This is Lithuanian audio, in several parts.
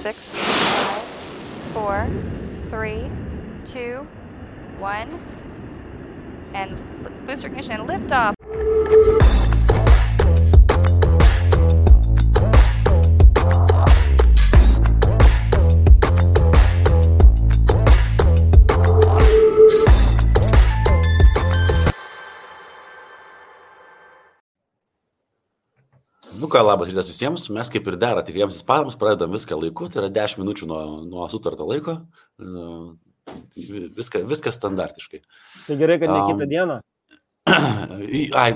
6, 5, 4, 3, 2, 1, and booster ignition and liftoff. Nu ką, labas rytas visiems. Mes kaip ir dera tikriems ispanams pradedam viską laiku, tai yra 10 minučių nuo sutarto laiko. Viskas standartiškai. Tai gerai, kad ne kitą dieną.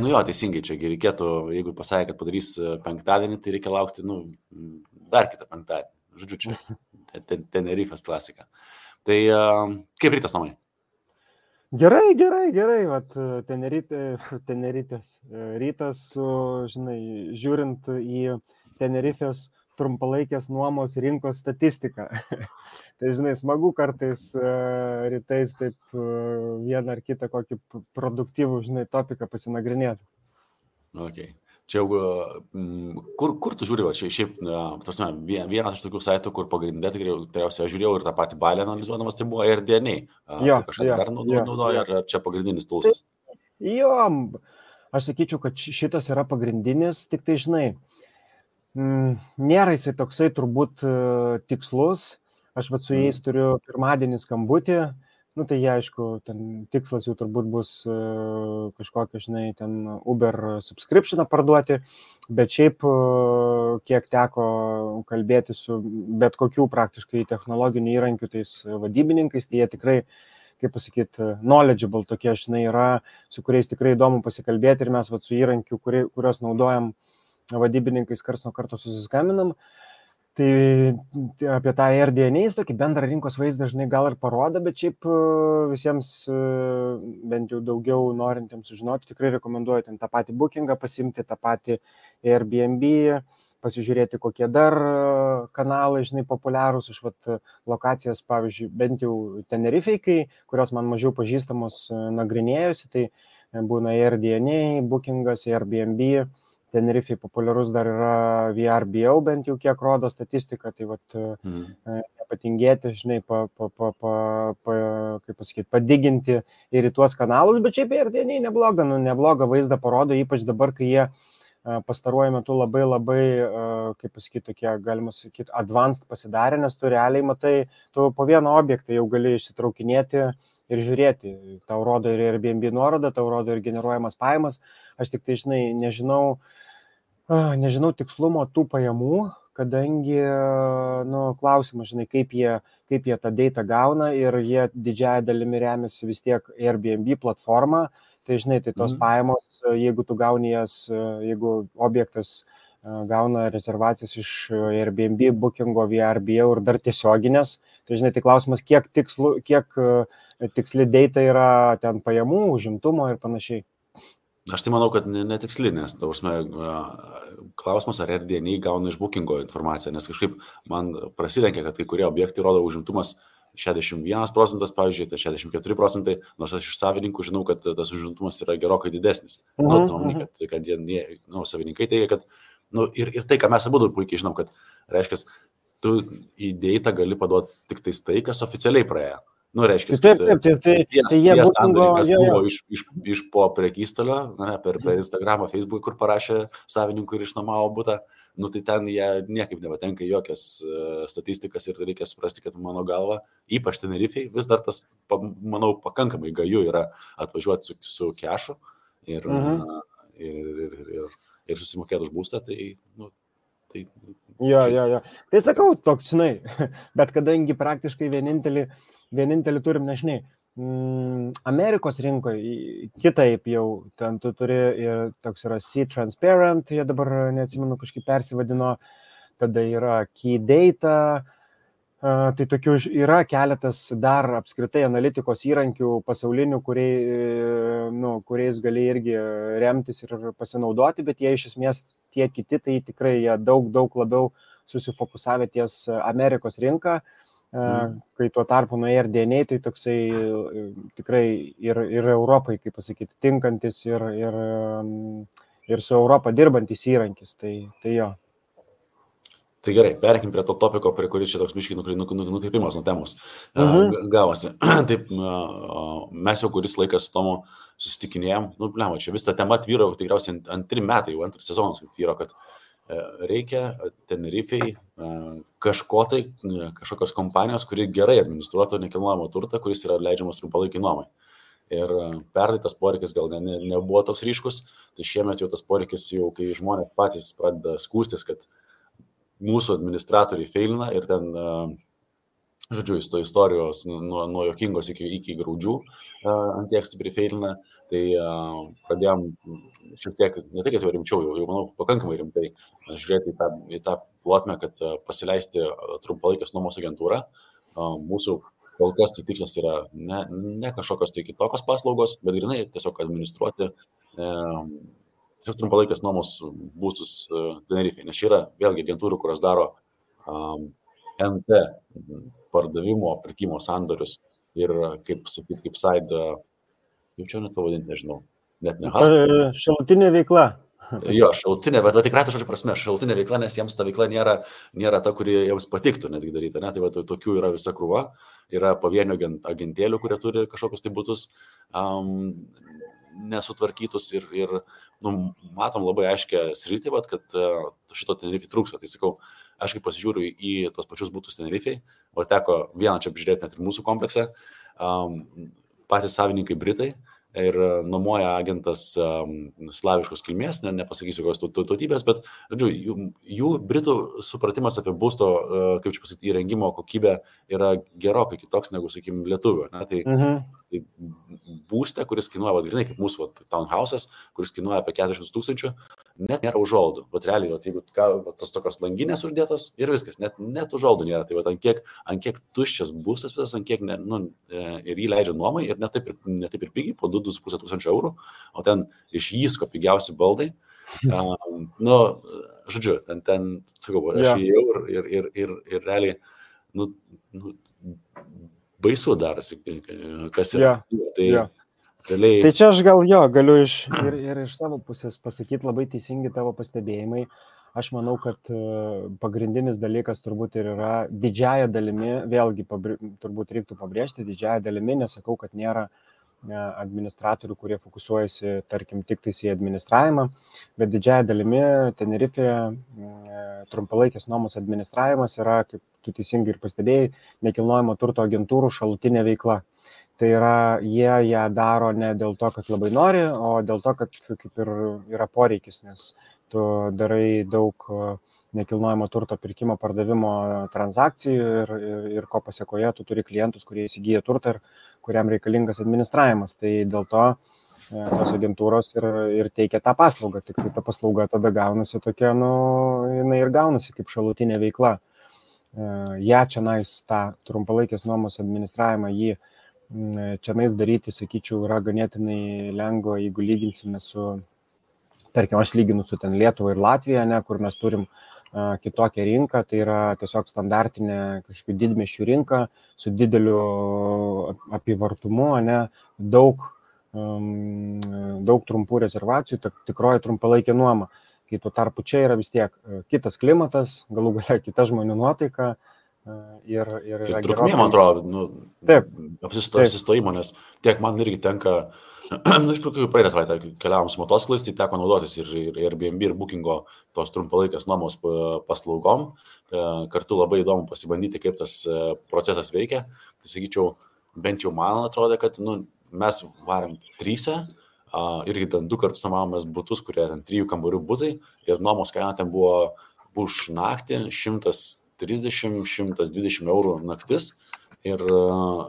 Nu jo, teisingai, čia reikėtų, jeigu pasakė, kad padarys penktadienį, tai reikia laukti, dar kitą penktadienį. Žodžiu, čia Tenerifės klasika. Tai kaip rytas, Tomai? Gerai. Vat Tenerifės rytas, žinai, žiūrint į Tenerifės trumpalaikės nuomos rinkos statistiką. Tai, žinai, smagu kartais rytais taip vieną ar kitą kokį produktyvų, žinai, topiką pasinagrinėti. Okay. Čia jau, kur tu žiūri, šiaip, vienas iš tokių saitų, kur pagrindė, tikriausiai aš žiūrėjau ir tą patį balį analizuodamas, tai buvo AirDNA. Kažką dar naudoja, ar čia pagrindinis tulsas? Jo, aš sakyčiau, kad šitas yra pagrindinis, tik tai, žinai, nėra jisai toksai turbūt tikslus. Aš su jais turiu pirmadienį skambutį. Tai jie, aišku, ten tikslas jau turbūt bus kažkokią, žinai, ten Uber subscriptioną parduoti, bet šiaip, kiek teko kalbėti su bet kokių praktiškai technologinių įrankių tais vadybininkais, tai jie tikrai, kaip pasakyti, knowledgeable tokie, žinai, yra, su kuriais tikrai įdomu pasikalbėti ir mes su įrankiu, kuriuos naudojam vadybininkais karts nuo karto susiskambinam. Tai apie tą AirDNA tokį bendrą rinkos vaizdą dažnai gal ir parodo, bet šiaip visiems bent jau daugiau norintiems sužinoti, tikrai rekomenduoju ten tą patį bookingą pasimti, tą patį Airbnb, pasižiūrėti kokie dar kanalai, žinai, populiarūs. Aš lokacijas, pavyzdžiui, bent jau Tenerifei, kurios man mažiau pažįstamos nagrinėjusi, tai būna AirDNA, bookingas, Airbnb. Tenerifei populiarus dar yra VRBO, bent jau kiek rodo statistika, tai nepatingėti, žinai, kaip pasakyti, padiginti ir į tuos kanalus, bet šiaip AirDNA neblogą vaizdą parodo, ypač dabar, kai jie pastaruoju metu labai, kaip pasakyti, tokie, galima sakyti, advanced pasidarė, nes tu realiai matai, tu po vieną objektą jau gali išsitraukinėti ir žiūrėti. Tau rodo ir Airbnb nuorodą, tau rodo ir generuojamas pajamas. Aš tik tai, žinai, nežinau tikslumo tų pajamų, kadangi, klausimas, žinai, kaip jie tą datą gauna ir jie didžiąją dalimi remiasi vis tiek Airbnb platformą. Tai, žinai, tai tos pajamos, jeigu tu gauni jas, jeigu objektas gauna rezervacijas iš Airbnb, bookingo, VRBO ir dar tiesioginės, tai, žinai, tai klausimas, kiek tiksli data yra ten pajamų, užimtumo ir panašiai. Aš tai manau, kad netiksli, nes klausimas, ar AirDNA gauna iš bookingo informaciją, nes kažkaip man prasilenkia, kad kai kurie objektai rodo užimtumas 61%, pavyzdžiui, tai 64%, nors aš iš savininkų žinau, kad tas užimtumas yra gerokai didesnis. Kad jie, savininkai teigia, kad, ir tai, ką mes abudu puikiai žinom, kad reiškia, tu į datą gali paduoti tik tai, kas oficialiai praėjo. Reiškia, kad jie sandorinkas buvo iš po prekystalio, per Instagramą, Facebook, kur parašė savininkų ir išnuomavo butą, tai ten jie niekaip nepatenka į jokias statistikas ir reikia suprasti, kad mano galva, ypač Tenerifei, vis dar tas, manau, pakankamai gaju yra atvažiuoti su kešu ir susimokėti už būstą, tai... Jo. Tai sakau, toks, žinai, bet kadangi praktiškai vienintelį turim, nežinai, Amerikos rinkoje kitaip jau, ten tu turi ir toks yra Sea Transparent, jie dabar, neatsimenu, kažkaip persivadino, tada yra Key Data, tai tokių yra keletas dar apskritai analitikos įrankių pasaulinių, kuriais gali irgi remtis ir pasinaudoti, bet jie iš esmės tie kiti, tai tikrai jie daug labiau susifokusavę ties Amerikos rinką. Kai tuo tarpu nuo AirDNA, tai toksai tikrai ir Europai, kaip pasakyti, tinkantis ir su Europą dirbantis įrankis, tai jo. Tai gerai, perėkim prie to topiko, prie kuris čia toks biškiai nukreipimas nuo temos gavosi. Taip, mes jau kuris laikas su Tomu susitikinėjom, čia vis ta tema tvyro, tikriausiai antri metai, jau antras sezonas tvyro, kad reikia Tenerifei kažkokios kompanijos, kuri gerai administruotų nekilnojamo turtą, kuris yra leidžiamas trumpalaikiai nuomai. Ir pernai tas poreikis gal nebuvo toks ryškus, tai šiemet jau tas poreikis jau, kai žmonės patys pradeda skūstis, kad mūsų administratoriai feilina ir ten, žodžiu, istorijos nuo jokingos iki graudžių ant tiek stipriai feilina, tai pradėjom šiek tiek, ne tai, kad jau rimčiau, jau manau, pakankamai rimtai žiūrėti į tą plotmę, kad pasileisti trumpalaikės nuomos agentūrą. Mūsų kol kas tai tikslas yra ne kažkokios tai kitokios paslaugos, bet grinai tiesiog administruoti tiesiog trumpalaikės nuomos būstus Tenerifei, nes čia yra vėlgi agentūrų, kurios daro NT pardavimo, pirkimo sandorius ir kaip side, kaip čia net pavadinti, nežinau, net ne hustle. Šalutinė veikla. Jo, šalutinė, bet tikrai ta žodžio prasme, šalutinė veikla, nes jiems ta veikla nėra ta, kuri jiems patiktų netgi daryti, ne? Tai tokių yra visa krūva, yra pavienių agentėlių, kurie turi kažkokius tai būtus nesutvarkytus ir matom labai aiškę sritį, kad šito Tenerifei trūksta. Tai sakau, aš kaip pasižiūriu į tos pačius būtus Tenerifei, o teko vieną čia apžiūrėti net ir mūsų kompleksą, patys savininkai Britai ir nuomoja agentas slaviškos kilmės, nepasakysiu kokios tautybės, bet, žodžiu, jų Britų supratimas apie būsto, kaip čia pasakyti, įrengimo kokybę yra gerokai kitoks negu, sakykime, lietuvių. Tai būste, kuris kainuoja, grinai kaip mūsų townhouse'as, kuris kainuoja apie 40 000, net nėra užuolaidų. Realiai, jeigu tos tokios langinės uždėtos ir viskas, net užuolaidų nėra. Tai ant kiek tuščias būstas, ant kiek ir jį leidžia nuomai ir ne taip ir pigiai, po 2,5 tūkstančio eurų, o ten iš Jysko pigiausi baldai. Žodžiu, ten sakau, aš įėjau ir realiai, baisu darosi, kas yra. Tai čia aš gal galiu ir iš savo pusės pasakyti labai teisingi tavo pastebėjimai. Aš manau, kad pagrindinis dalykas turbūt ir yra didžiąją dalimi, vėlgi turbūt reiktų pabrėžti, didžiąją dalimi, nesakau, kad nėra administratorių, kurie fokusuojasi, tarkim, tik tais į administravimą, bet didžiąją dalimi Tenerifėje trumpalaikės nuomos administravimas yra, kaip tu teisingai ir pastebėjai, nekilnojamo turto agentūrų šalutinė veikla. Tai yra, jie ją daro ne dėl to, kad labai nori, o dėl to, kad kaip ir yra poreikis, nes tu darai daug nekilnojamo turto pirkimo, pardavimo transakcijų ir ko pasiekoje tu turi klientus, kurie įsigyja turtą ir kuriam reikalingas administravimas. Tai dėl to tos agentūros ir teikia tą paslaugą, tik tai ta paslauga tada gaunasi tokia, jinai ir gaunasi kaip šalutinė veikla. Čianais tą trumpalaikės nuomos administravimą čianais daryti, sakyčiau, yra ganėtinai lengva, jeigu lyginsime su, tarkim, aš lyginu su ten Lietuva ir Latvija, kur mes turim kitokią rinką, tai yra tiesiog standartinė kažkokių didmiesčių rinka su dideliu apyvartumu, daug trumpų rezervacijų, tikroji trumpalaikė nuoma. Kai tuo tarpu čia yra vis tiek kitas klimatas, galų galia kita žmonių nuotaika. Ir trukmė, man atrodo, apsistojimo, nes tiek man irgi tenka, iš tikrųjų praeitą savaitę keliavom su motociklais, tai teko naudotis ir Airbnb, ir Bookingo tos trumpalaikės nuomos paslaugom. Kartu labai įdomu pasibandyti, kaip tas procesas veikia. Tai sakyčiau, bent jau man atrodo, kad mes varėm 3, irgi ten 2 kartus nuomavomės butus, kurie ten 3 kambarių butai ir nuomos kaina ten buvo už naktį 130-120 eurų naktis ir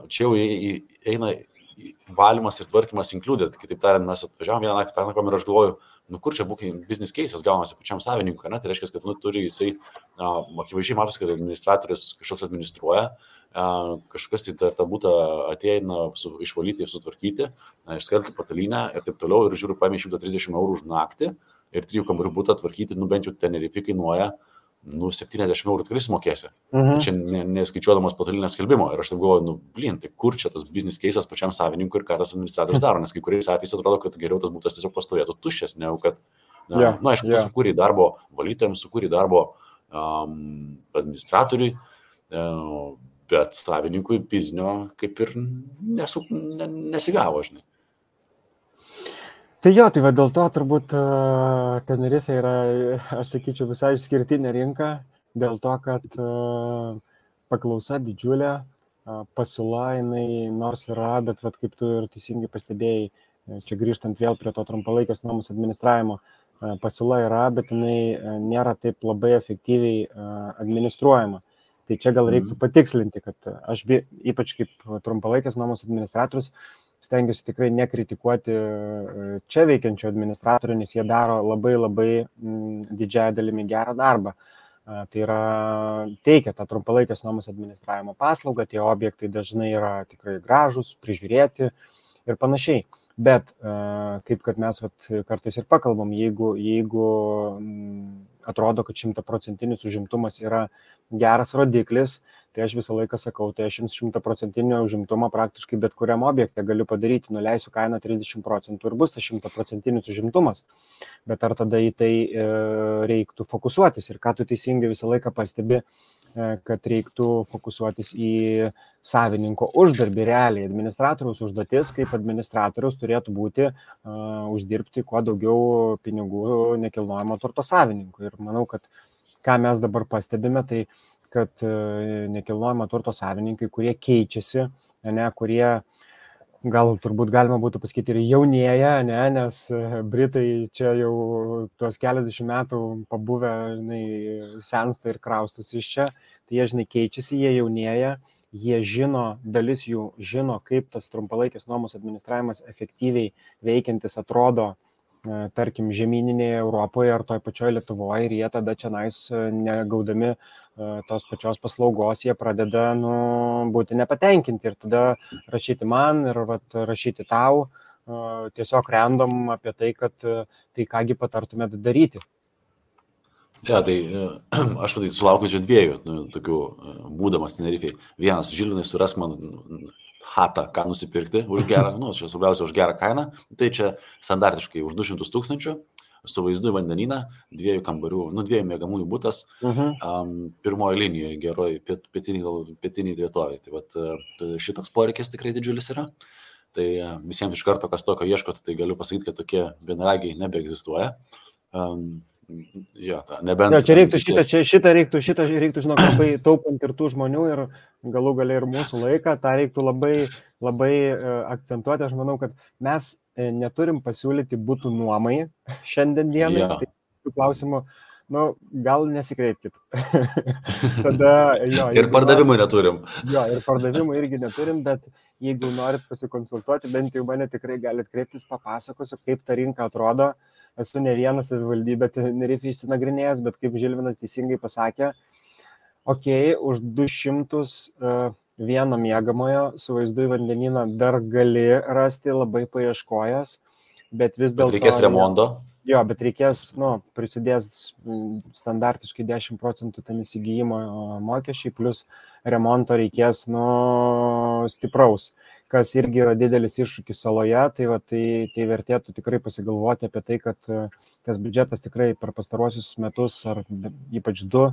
čia jau eina valymas ir tvarkymas included. Kitaip tariant, mes atvažiavom vieną naktį pernakom ir aš galvoju, kur čia business case'as gaunasi pačiam savininkui, tai reiškia, kad turi jisai, akivaizdžiai matosi, kad administratorius kažkoks administruoja, kažkas tai tą būtą ateina išvalyti ir sutvarkyti, išskelti patalynę ir taip toliau ir žiūriu, paėmė 130 eurų už naktį ir 3 kambarių butą tvarkyti, bent jau Tenerifei kainuoja 70 eurų tikrai sumokėsi. Tai čia neskaičiuodamas patalinės skelbimo. Ir aš taip galvoju, tai kur čia tas business case'as pačiam savininkui ir ką tas administratorius daro, nes kai kuriais atvejais atrodo, kad geriau tas būtas tiesiog pastovėtų tuščias, negu kad, aišku, tu sukūrė darbo valytojams, sukūrė darbo administratoriui, bet savininkui biznio kaip ir nesigavo, žinai. Tai jo, tai va dėl to turbūt Tenerife yra, aš sakyčiau, visai išskirtinė rinka, dėl to, kad paklausa didžiulė, pasiūla jinai nors yra, bet vat, kaip tu ir teisingai pastebėjai, čia grįžtant vėl prie to trumpalaikės nuomos administravimo, pasiūla yra, bet jinai nėra taip labai efektyviai administruojama. Tai čia gal reiktų patikslinti, kad aš ypač kaip trumpalaikės nuomos administratorius stengiuosi tikrai nekritikuoti čia veikiančių administratorių, nes jie daro labai didžiąją dalimi gerą darbą. Tai yra teikia tą trumpalaikės nuomos administravimo paslaugą, tie objektai dažnai yra tikrai gražus, prižiūrėti ir panašiai. Bet kaip kad mes kartais ir pakalbam, jeigu atrodo, kad 100% užimtumas yra geras rodiklis, tai aš visą laiką sakau, tai aš jums 100% užimtumą praktiškai bet kuriam objekte galiu padaryti, nuleisiu kainą 30% ir bus tas 100% užimtumas. Bet ar tada į tai reiktų fokusuotis ir ką tu teisingai visą laiką pastebi, kad reiktų fokusuotis į savininko uždarbį realiai. Administratoriaus užduotis kaip administratoriaus turėtų būti uždirbti kuo daugiau pinigų nekilnojamo turto savininkui. Ir manau, kad ką mes dabar pastebime, tai kad nekilnojamo turto savininkai, kurie keičiasi, kurie gal turbūt galima būtų pasakyti ir jaunėja, nes Britai čia jau tuos keliasdešimt metų pabuvę, sensta ir kraustus iš čia, tai jie, keičiasi, jie jaunėja, jie žino, dalis jų žino, kaip tas trumpalaikės nuomos administravimas efektyviai veikiantis atrodo, tarkim, žemyninėje Europoje ar toj pačioj Lietuvoje, ir jie tada čia negaudami tos pačios paslaugos, jie pradeda būti nepatenkinti ir tada rašyti man ir rašyti tau, tiesiog random apie tai, kad tai kągi patartumėt daryti. Ja, tai aš sulaukiu čia dviejų tokių būdamas Tenerifei. Vienas, Žilvinai, surask man hatą, ką nusipirkti už gerą, čia svarbiausia už gerą kainą, tai čia standartiškai už 200 000 su vaizdu į vandenyną, 2 kambarių, 2 miegamųjų butas, pirmoji linijoje, geroj pietiniai vietovėje. Tai šitoks poreikis tikrai didžiulis yra. Tai visiems iš karto, kas tokio ieškot, tai galiu pasakyti, kad tokie vienaragiai nebeegzistuoja. Jo, nebent... Ja, šitą reiktų, žinok, labai taupant ir tų žmonių ir galų gale ir mūsų laiką, tą reiktų labai akcentuoti. Aš manau, kad mes neturim pasiūlyti būtų nuomai šiandien dienai. Ja. Tai klausimų, gal nesikreipkit. Tada, ir pardavimų neturim. Jo, ir pardavimų irgi neturim, bet jeigu norit pasikonsultuoti, bent jau mane tikrai galit kreiptis, papasakosiu, kaip ta rinka atrodo. Esu ne vieną savivaldybę Tenerifei išsinagrinėjęs, bet kaip Žilvinas teisingai pasakė, už 201 miegamojo su vaizdu į vandenyną dar gali rasti labai paieškojęs, bet vis dėlto... Bet reikės remonto? Jo, bet reikės, prisidės standartiškai 10% tam įsigijimo mokesčiai, plus remonto reikės, stipraus, kas irgi yra didelis iššūkis saloje, tai vertėtų tikrai pasigalvoti apie tai, kad tas biudžetas tikrai per pastaruosius metus, ar ypač 2,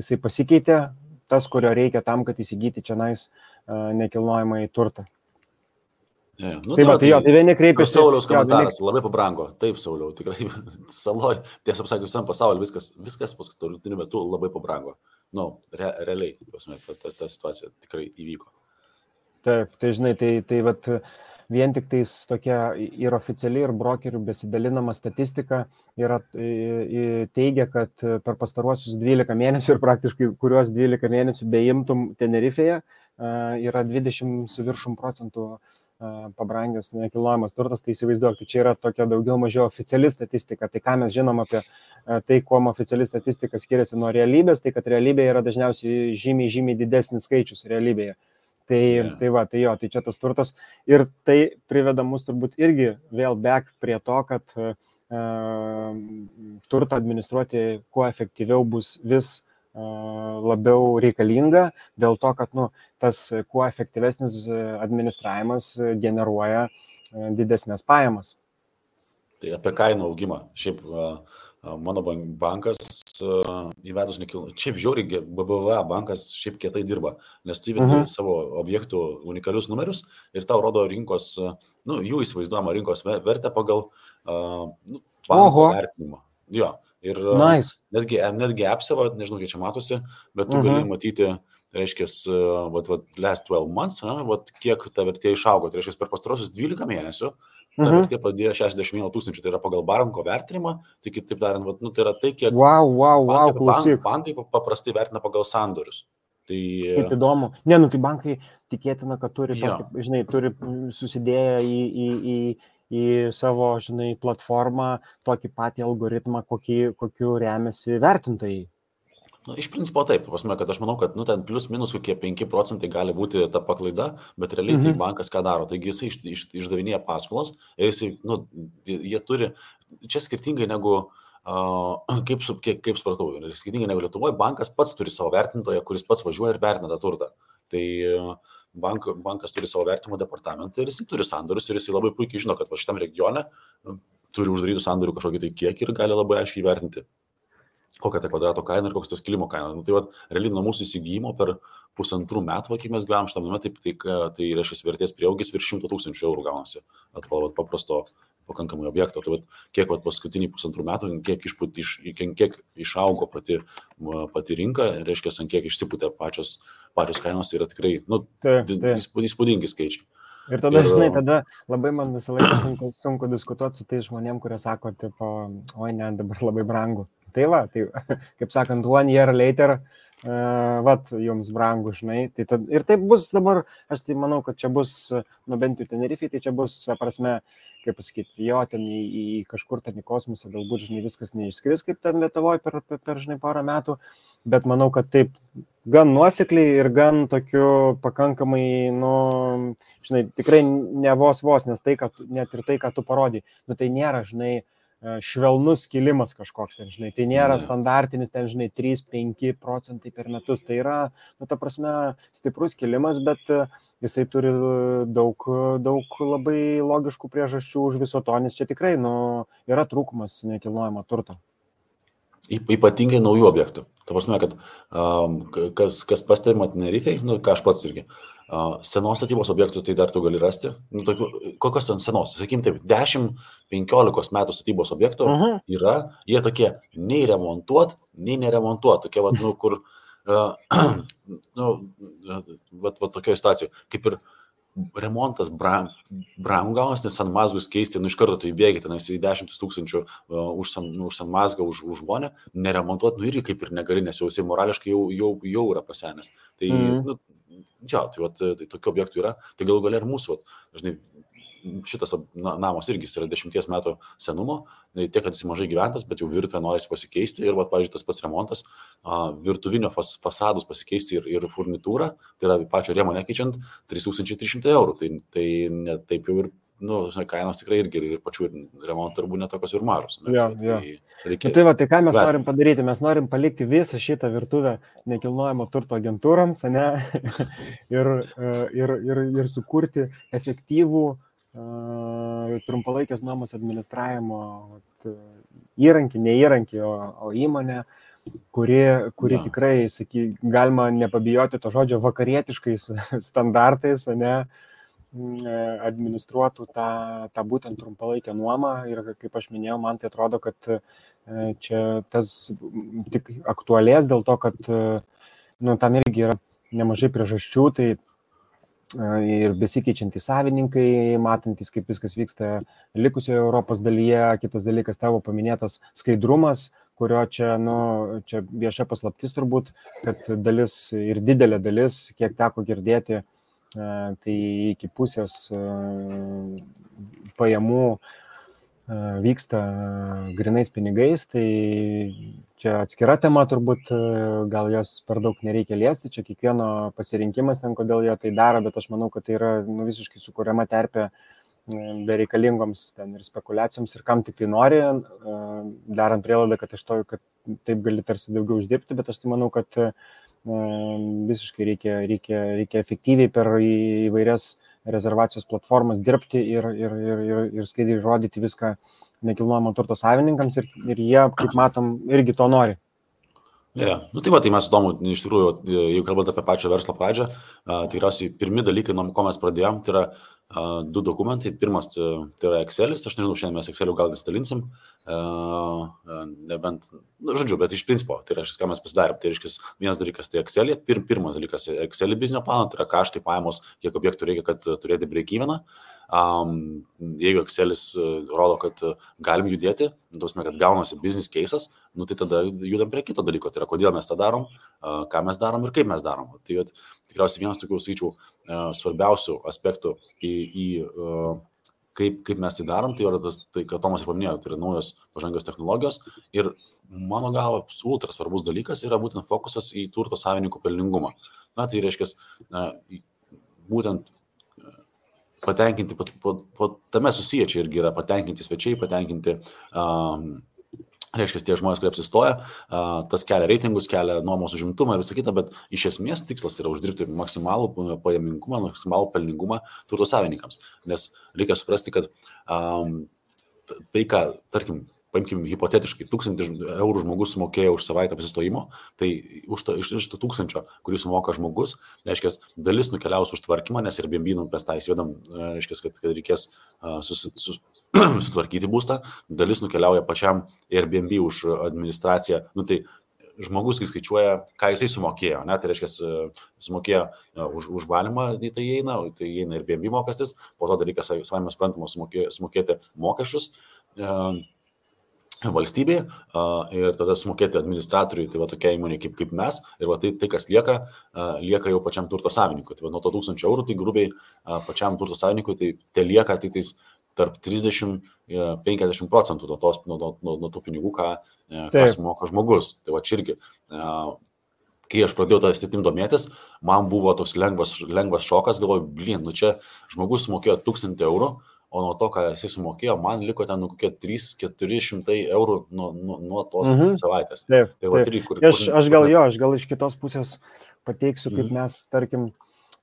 jisai pasikeitė, tas, kurio reikia tam, kad įsigyti čionais nekilnojamąjį turtą. Ja, tai vieni kreipiasi. Sauliaus komentaras labai pabrango. Taip, Sauliau, tikrai saloj, tiesą sakant, visam pasauliu viskas paskutiniu metu labai pabrango. Realiai, ta situacija tikrai įvyko. Taip, tai vien tik tais tokia ir oficiali, ir brokerių besidalinama statistika teigia, kad per pastaruosius 12 mėnesių ir praktiškai kuriuos 12 mėnesių beimtum Tenerifėje yra 20% pabrangęs nekilnojamas turtas, tai įsivaizduok, tai čia yra tokia daugiau mažiau oficiali statistika. Tai ką mes žinom apie tai, kuom oficiali statistika skiriasi nuo realybės, tai kad realybėje yra dažniausiai žymiai didesnis skaičius realybėje. Tai čia tas turtas ir tai priveda mus turbūt irgi vėl back prie to, kad turtą administruoti kuo efektyviau bus vis labiau reikalinga, dėl to, kad tas kuo efektyvesnis administravimas generuoja didesnės pajamas. Tai apie kainų augimą. Šiaip mano bankas įvedus šiaip žiauriai, BBVA bankas šiaip kietai dirba, nes tu įvedi savo objektų unikalius numerius ir tau rodo rinkos, jų įsivaizduojama rinkos vertę pagal banko vertinimą. Jo, ir nice. netgi apseva, nežinau, kiek čia matosi, bet tu gali matyti, reiškia, last 12 months, kiek ta vertė išaugo, tai reiškia, per pastarosius 12 mėnesių ta vertė padėjo 61 000, tai yra pagal banko vertinimą, tai kitaip tariant, tai yra tai, kiek bankai paprastai vertina pagal sandorius. Tai... Kaip įdomu. Ne, tai bankai tikėtina, kad turi, turi susidėję į savo, platformą tokį patį algoritmą, kokiu remiasi vertintojai. Iš principo taip, kad aš manau, kad ten plius minus kokie 5% gali būti ta paklaida, bet realiai tai bankas ką daro, taigi jisai išdavinėja paskolas ir jie turi, čia skirtingai negu, kaip supratau, skirtingai negu Lietuvoje, bankas pats turi savo vertintoją, kuris pats važiuoja ir vertina tą turtą. Tai bankas turi savo vertimo departamentą ir jisai turi sandorius ir jisai labai puikiai žino, kad šitam regione turi uždarytų sandorių kažkokį tai kiekį ir gali labai aiškiai įvertinti, kokia ta kvadrato kaina ir koks tas kilimo kaina. Tai realiai nuo mūsų įsigijimo per 1,5 metų, kai mes gyvenam šitam name, tai reiškia vertės prieaugis virš 100 000 eurų gaunasi. Atrodo paprasto pakankamai objekto. Tai kiek paskutiniai 1,5 metų, kiek išaugo pati rinka, reiškia, ant kiek išsipūtė pačios kainos, yra tikrai įspūdingi skaičiai. Ir tada, tada labai man visą laiką sunku diskutuoti su tai žmonėm, kurie sako, oi ne, dabar labai brangu. Tai kaip sakant, 1 year later, jums brangu, ir taip bus dabar, aš tai manau, kad čia bus, bent jau Tenerifei, tai čia bus, prasme, kaip pasakyti, jo, ten į kažkur ten į kosmosą, galbūt, viskas neišskris, kaip ten Lietuvoje per porą metų, bet manau, kad taip gan nuosekliai ir gan tokiu pakankamai, tikrai ne vos, nes tai, kad net ir tai, ką tu parodai, tai nėra, švelnus kilimas kažkoks, tai nėra standartinis, 3-5% per metus, tai yra, ta prasme, stiprus kilimas, bet jisai turi daug labai logiškų priežasčių už viso to, nes čia tikrai, yra trūkumas nekilnojamo turto. Ypatingai naujų objektų. Ta prasme, kad kas pastebima Tenerifei, ką aš pats irgi, senos statybos objektų tai dar tu gali rasti. Kokios ten senos? Sakykim taip, 10-15 metų statybos objektų yra, jie tokie nei remontuot, nei neremontuot. Tokie, kur, tokioje situacijoje, kaip ir remontas brangu gaunas, nes San Mazgus keisti, iš karto tu įbėgi, tenais į 10 000 už San Mazgą, už žmonę, neremontuot, irgi kaip ir negali, nes jau jisai morališkai jau yra pasenęs. Tai, tai tokių objektų yra, tai galų galia ir mūsų, dažnai šitas namas irgi yra 10 metų senumo, tiek, kad jis mažai gyventas, bet jau virtuvė norisi pasikeisti ir, pavyzdžiui, tas pats remontas, virtuvinio fasadus pasikeisti ir furnitūrą, tai yra pačio rėmo nekeičiant 3300 eurų, tai ne taip jau ir, kainos tikrai irgi ir pačių remonto darbų netokios ir mažos. Tai ką mes norim padaryti? Mes norim palikti visą šitą virtuvę nekilnojamo turto agentūrams, ir sukurti efektyvų trumpalaikės nuomos administravimo įrankį, ne įrankį, o įmonę, kuri tikrai, galima nepabijoti to žodžio, vakarietiškais standartais, administruotų tą būtent trumpalaikę nuomą. Ir kaip aš minėjau, man tai atrodo, kad čia tas tik aktualės dėl to, kad tam irgi yra nemažai priežasčių, tai ir besikeičiantys savininkai, matantis, kaip viskas vyksta likusioje Europos dalyje. Kitas dalykas, tavo paminėtas skaidrumas, kurio čia vieša paslaptis turbūt, kad dalis ir didelė dalis, kiek teko girdėti, tai iki pusės pajamų vyksta grinais pinigais, tai čia atskira tema turbūt, gal jos per daug nereikia liesti, čia kiekvieno pasirinkimas ten, kodėl jie tai daro, bet aš manau, kad tai yra visiškai sukuriama terpė bereikalingoms ten ir spekulacijoms ir kam tik tai nori, darant prielaidą, kad taip gali tarsi daugiau uždirbti, bet aš tai manau, kad visiškai reikia efektyviai per įvairias rezervacijos platformas dirbti ir skaidriai rodyti viską nekilnojamo turto savininkams ir jie, kaip matom, irgi to nori. Yeah. Nu, tai mes įdomu, iš tikrųjų, jeigu kalbant apie pačią verslo pradžią, tikriausiai pirmi dalykai, nuo ko mes pradėjom, tai yra 2 dokumentai. Pirmas tai yra Excelis, aš nežinau, šiandien mes Exceliu gal nesidalinsim, nebent, žodžiu, bet iš principo, tai reiškia, ką mes pasidarėm. Tai reiškia, vienas dalykas tai Excelį, pirmas dalykas Excelį biznio planą, tai yra kaštai, pajamos, kiek objektų reikia, kad turėti break-eveną. Jeigu Excelis rodo, kad galim judėti, kad gaunasi business case'as, nu, tai tada judam prie kito dalyko, tai yra kodėl mes tą darom, ką mes darom ir kaip mes darom. Tai tikriausiai vienas tokių, sakyčiau, svarbiausių aspektų kaip mes tai darom, tai yra tas, tai, ką Tomas ir paminėjo, tai yra naujos pažangios technologijos ir mano galva ultra svarbus dalykas yra būtent fokusas į turto savininkų pelningumą. Na, tai reiškia, būtent patenkinti, tame susiję čia irgi yra patenkinti svečiai, patenkinti, reiškia, tie žmonės, kurie apsistoja, tas kelia reitingus, kelia nuomos užimtumą ir visą kitą, bet iš esmės tikslas yra uždirbti maksimalų pajamingumą, maksimalų pelningumą turto savininkams. Nes reikia suprasti, kad tai, ką, tarkim, paimkim hipotetiškai, 1000 eurų žmogus sumokėjo už savaitę apsistojimo, tai iš 1000, kurį sumoka žmogus, reiškia, dalis nukeliaus už tvarkymą, nes Airbnb mes tą įsivedam, reiškia, kad reikės sutvarkyti būstą, dalis nukeliauja pačiam Airbnb už administraciją, nu tai žmogus, kai skaičiuoja, ką jisai sumokėjo, ne, tai reiškia, sumokėjo už valymą, tai įeina Airbnb mokestis, po to dalykas, savame suprantama, sumokėti mokesčius valstybei ir tada sumokėti administratoriui, tai va tokia įmonė kaip mes, ir va tai kas lieka jau pačiam turto savininkui. Tai va nuo to 1000 eurų, tai grubiai pačiam turto savininkui, tai lieka tai tarp 30-50% nuo tų pinigų, ką sumoka žmogus. Tai va čia irgi, kai aš pradėjau tą sritim domėtis, man buvo toks lengvas šokas, galvoju, nu čia žmogus sumokėjo 1000 eurų, o nuo to, ką jisai sumokėjo, man liko ten kokie 300-400 eurų nuo tos savaitės. Taip, taip. Aš gal iš kitos pusės pateiksiu, kaip mes, tarkim,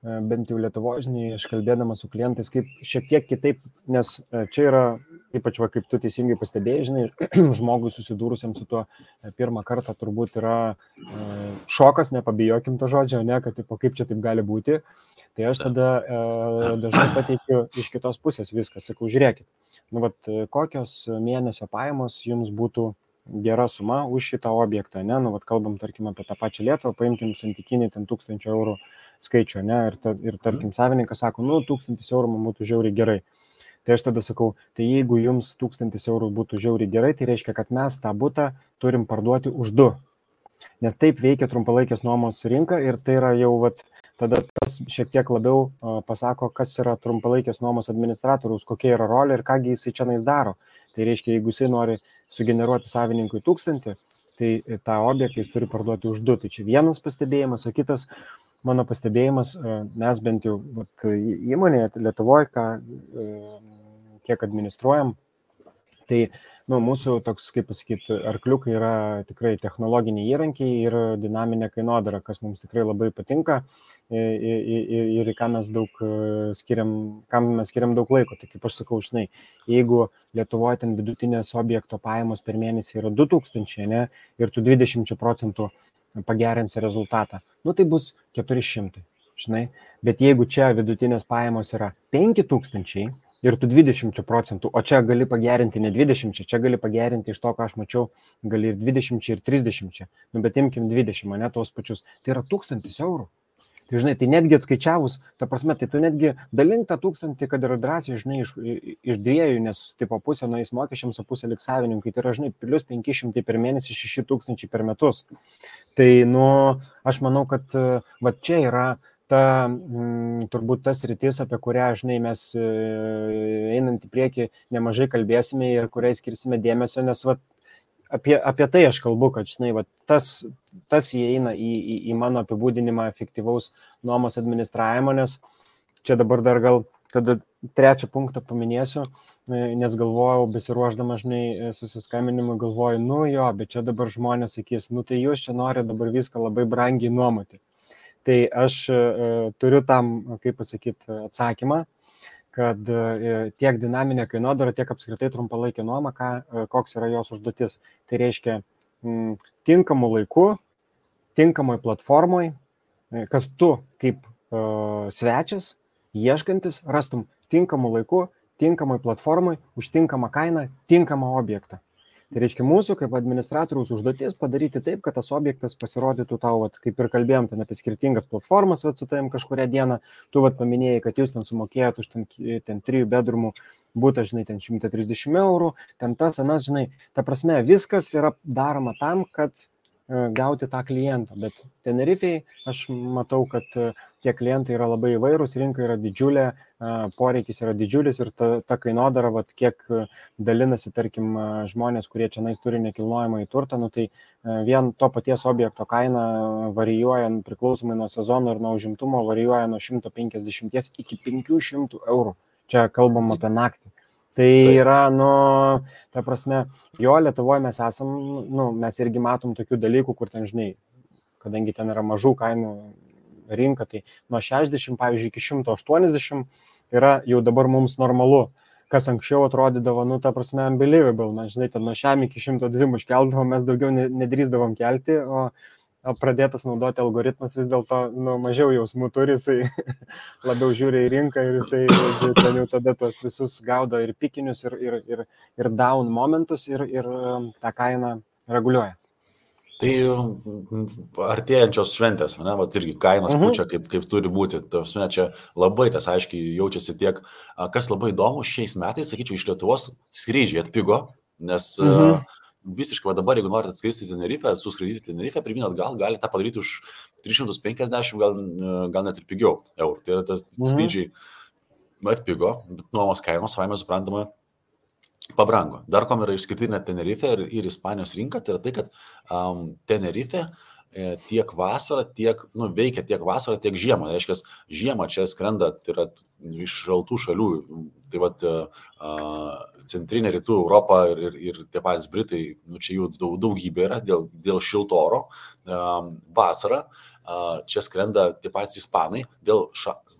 bent jau Lietuvoje, žinai, aš kalbėdamas su klientais, kaip šiek tiek kitaip, nes čia yra, ypač va, kaip tu teisingai pastebėjai, žinai, žmogui susidūrusiam su tuo pirmą kartą turbūt yra šokas, nepabijokim to žodžio, ne, kad kaip čia taip gali būti. Tai aš tada dažnai pateikiu iš kitos pusės viską, sakau, žiūrėkit, nu, vat, kokios mėnesio pajamos jums būtų gera suma už šitą objektą, ne, nu, vat, kalbam, tarkim, apie tą pačią Lietuvą, paimkim santykinį ten 1000 eurų skaičių, ne, ir tarkim, savininkas sako, nu, 1000 eurų man būtų žiauriai gerai. Tai aš tada sakau, tai jeigu jums 1000 eurų būtų žiauriai gerai, tai reiškia, kad mes tą butą turim parduoti už 2. Nes taip veikia trumpalaikės nuomos rinka ir tai yra jau, vat, tada tas šiek tiek labiau pasako, kas yra trumpalaikės nuomos administratoriaus, kokia yra rolė ir kągi jisai čia daro. Tai reiškia, jeigu jisai nori sugeneruoti savininkui 1000, tai tą objektą jis turi parduoti už 2. Tai čia vienas pastebėjimas, o kitas mano pastebėjimas, mes bent jau įmonėje Lietuvoje, kiek administruojam, tai mūsų toks, kaip pasakyti, arkliukai yra tikrai technologiniai įrankiai ir dinaminė kainodara, kas mums tikrai labai patinka ir kam mes skiriam daug laiko. Tai kaip aš sakau, žinai, jeigu Lietuvoje ten vidutinės objekto pajamos per mėnesį yra 2000, ne, ir tu 20% pagerinsi rezultatą, nu tai bus 400, žinai, bet jeigu čia vidutinės pajamos yra 5000, ir tu 20%, o čia gali pagerinti ne 20, čia gali pagerinti iš to, ką aš mačiau, gali ir 20 ir 30, nu bet imkim 20, ne tos pačius, tai yra 1000 eurų. Tai žinai, tai netgi atskaičiavus, ta prasme, tai tu netgi dalink tą 1000, kad yra drąsiai, žinai, iš 2, nes tipo pusė nueis mokesčiams, o pusė liks savininkai, tai yra, žinai, plus 500 per mėnesį, 6000 per metus. Tai, nu, aš manau, kad va čia yra turbūt tas rytis, apie kurią, žinai, mes einant į priekį nemažai kalbėsime ir kuriai skirsime dėmesio, nes va, apie tai aš kalbu, kad, žinai, va, tas įeina į mano apibūdinimą efektyvaus nuomos administravimo, nes čia dabar dar gal tada 3 punktą paminėsiu, nes galvojau, besiruošdama, žinai, susiskambinimui, galvoju, nu jo, bet čia dabar žmonės sakys, nu tai jūs čia nori dabar viską labai brangiai nuomoti. Tai aš turiu tam, kaip pasakyti, atsakymą, kad tiek dinaminė kainodara, tiek apskritai trumpalaikė nuoma, koks yra jos užduotis. Tai reiškia tinkamu laiku tinkamoj platformoj, kad tu kaip svečias, ieškantis, rastum tinkamų laikų, tinkamoj platformoj, už tinkamą kainą, tinkamą objektą. Tai reiškia mūsų kaip administratoriaus užduotis padaryti taip, kad tas objektas pasirodytų tau, kaip ir kalbėjom, ten apie skirtingas platformas, su tavim kažkurią dieną, tu paminėjai, kad jūs ten sumokėjot už ten 3 bedrumų būtą, žinai, ten 130 eurų, ten tas, anas, žinai, ta prasme, viskas yra daroma tam, kad gauti tą klientą, bet Tenerifei aš matau, kad tie klientai yra labai įvairūs, rinka yra didžiulė, poreikis yra didžiulis ir ta kainodara, kiek dalinasi, tarkim, žmonės, kurie čia turi nekilnojamąjį turtą, tai vien to paties objekto kaina varijuoja priklausomai nuo sezono ir nuo užimtumo, varijuoja nuo 150 iki 500 eurų. Čia kalbam apie naktį. Tai yra, ta prasme, jo Lietuvoje mes esam, mes irgi matom tokių dalykų, kur ten, žinai, kadangi ten yra mažų kainų rinka, tai nuo 60, pavyzdžiui, iki 180 yra jau dabar mums normalu, kas anksčiau atrodydavo, ta prasme, unbelievable, mes, žinai, ten nuo šiam iki 102 iškeldavom, mes daugiau nedrįsdavom kelti, o pradėtas naudoti algoritmas vis dėlto mažiau jausmų turi, jisai labiau žiūri į rinką ir jisai ten jau tada tos visus gaudo ir pikinius, ir down momentus ir tą kainą reguliuoja. Tai artėjančios šventės, irgi kainos pučia kaip turi būti. Čia labai tas aiškiai jaučiasi tiek, kas labai įdomu, šiais metais, sakyčiau, iš Lietuvos skrydžiai atpigo, nes visiškai dabar, jeigu norite atskristi Tenerifę, suskraidyti Tenerifę, pirmyn atgal, galite tą padaryti už 350, gal net ir pigiau eurų. Tai yra tas skrydžiai atpigo, bet nuomos kainos, savaime suprantama, pabrango. Dar kom yra išskirtinė Tenerifė ir Ispanijos rinka, tai yra tai, kad Tenerifė tiek vasarą, veikia tiek vasarą, tiek žiemą. Reiškia, žiemą čia skrenda, tai yra iš šaltų šalių, tai centrinė rytų Europa ir tie patys Britai, čia jų daugybė yra dėl šilto oro. Vasarą čia skrenda tie patys Ispanai dėl,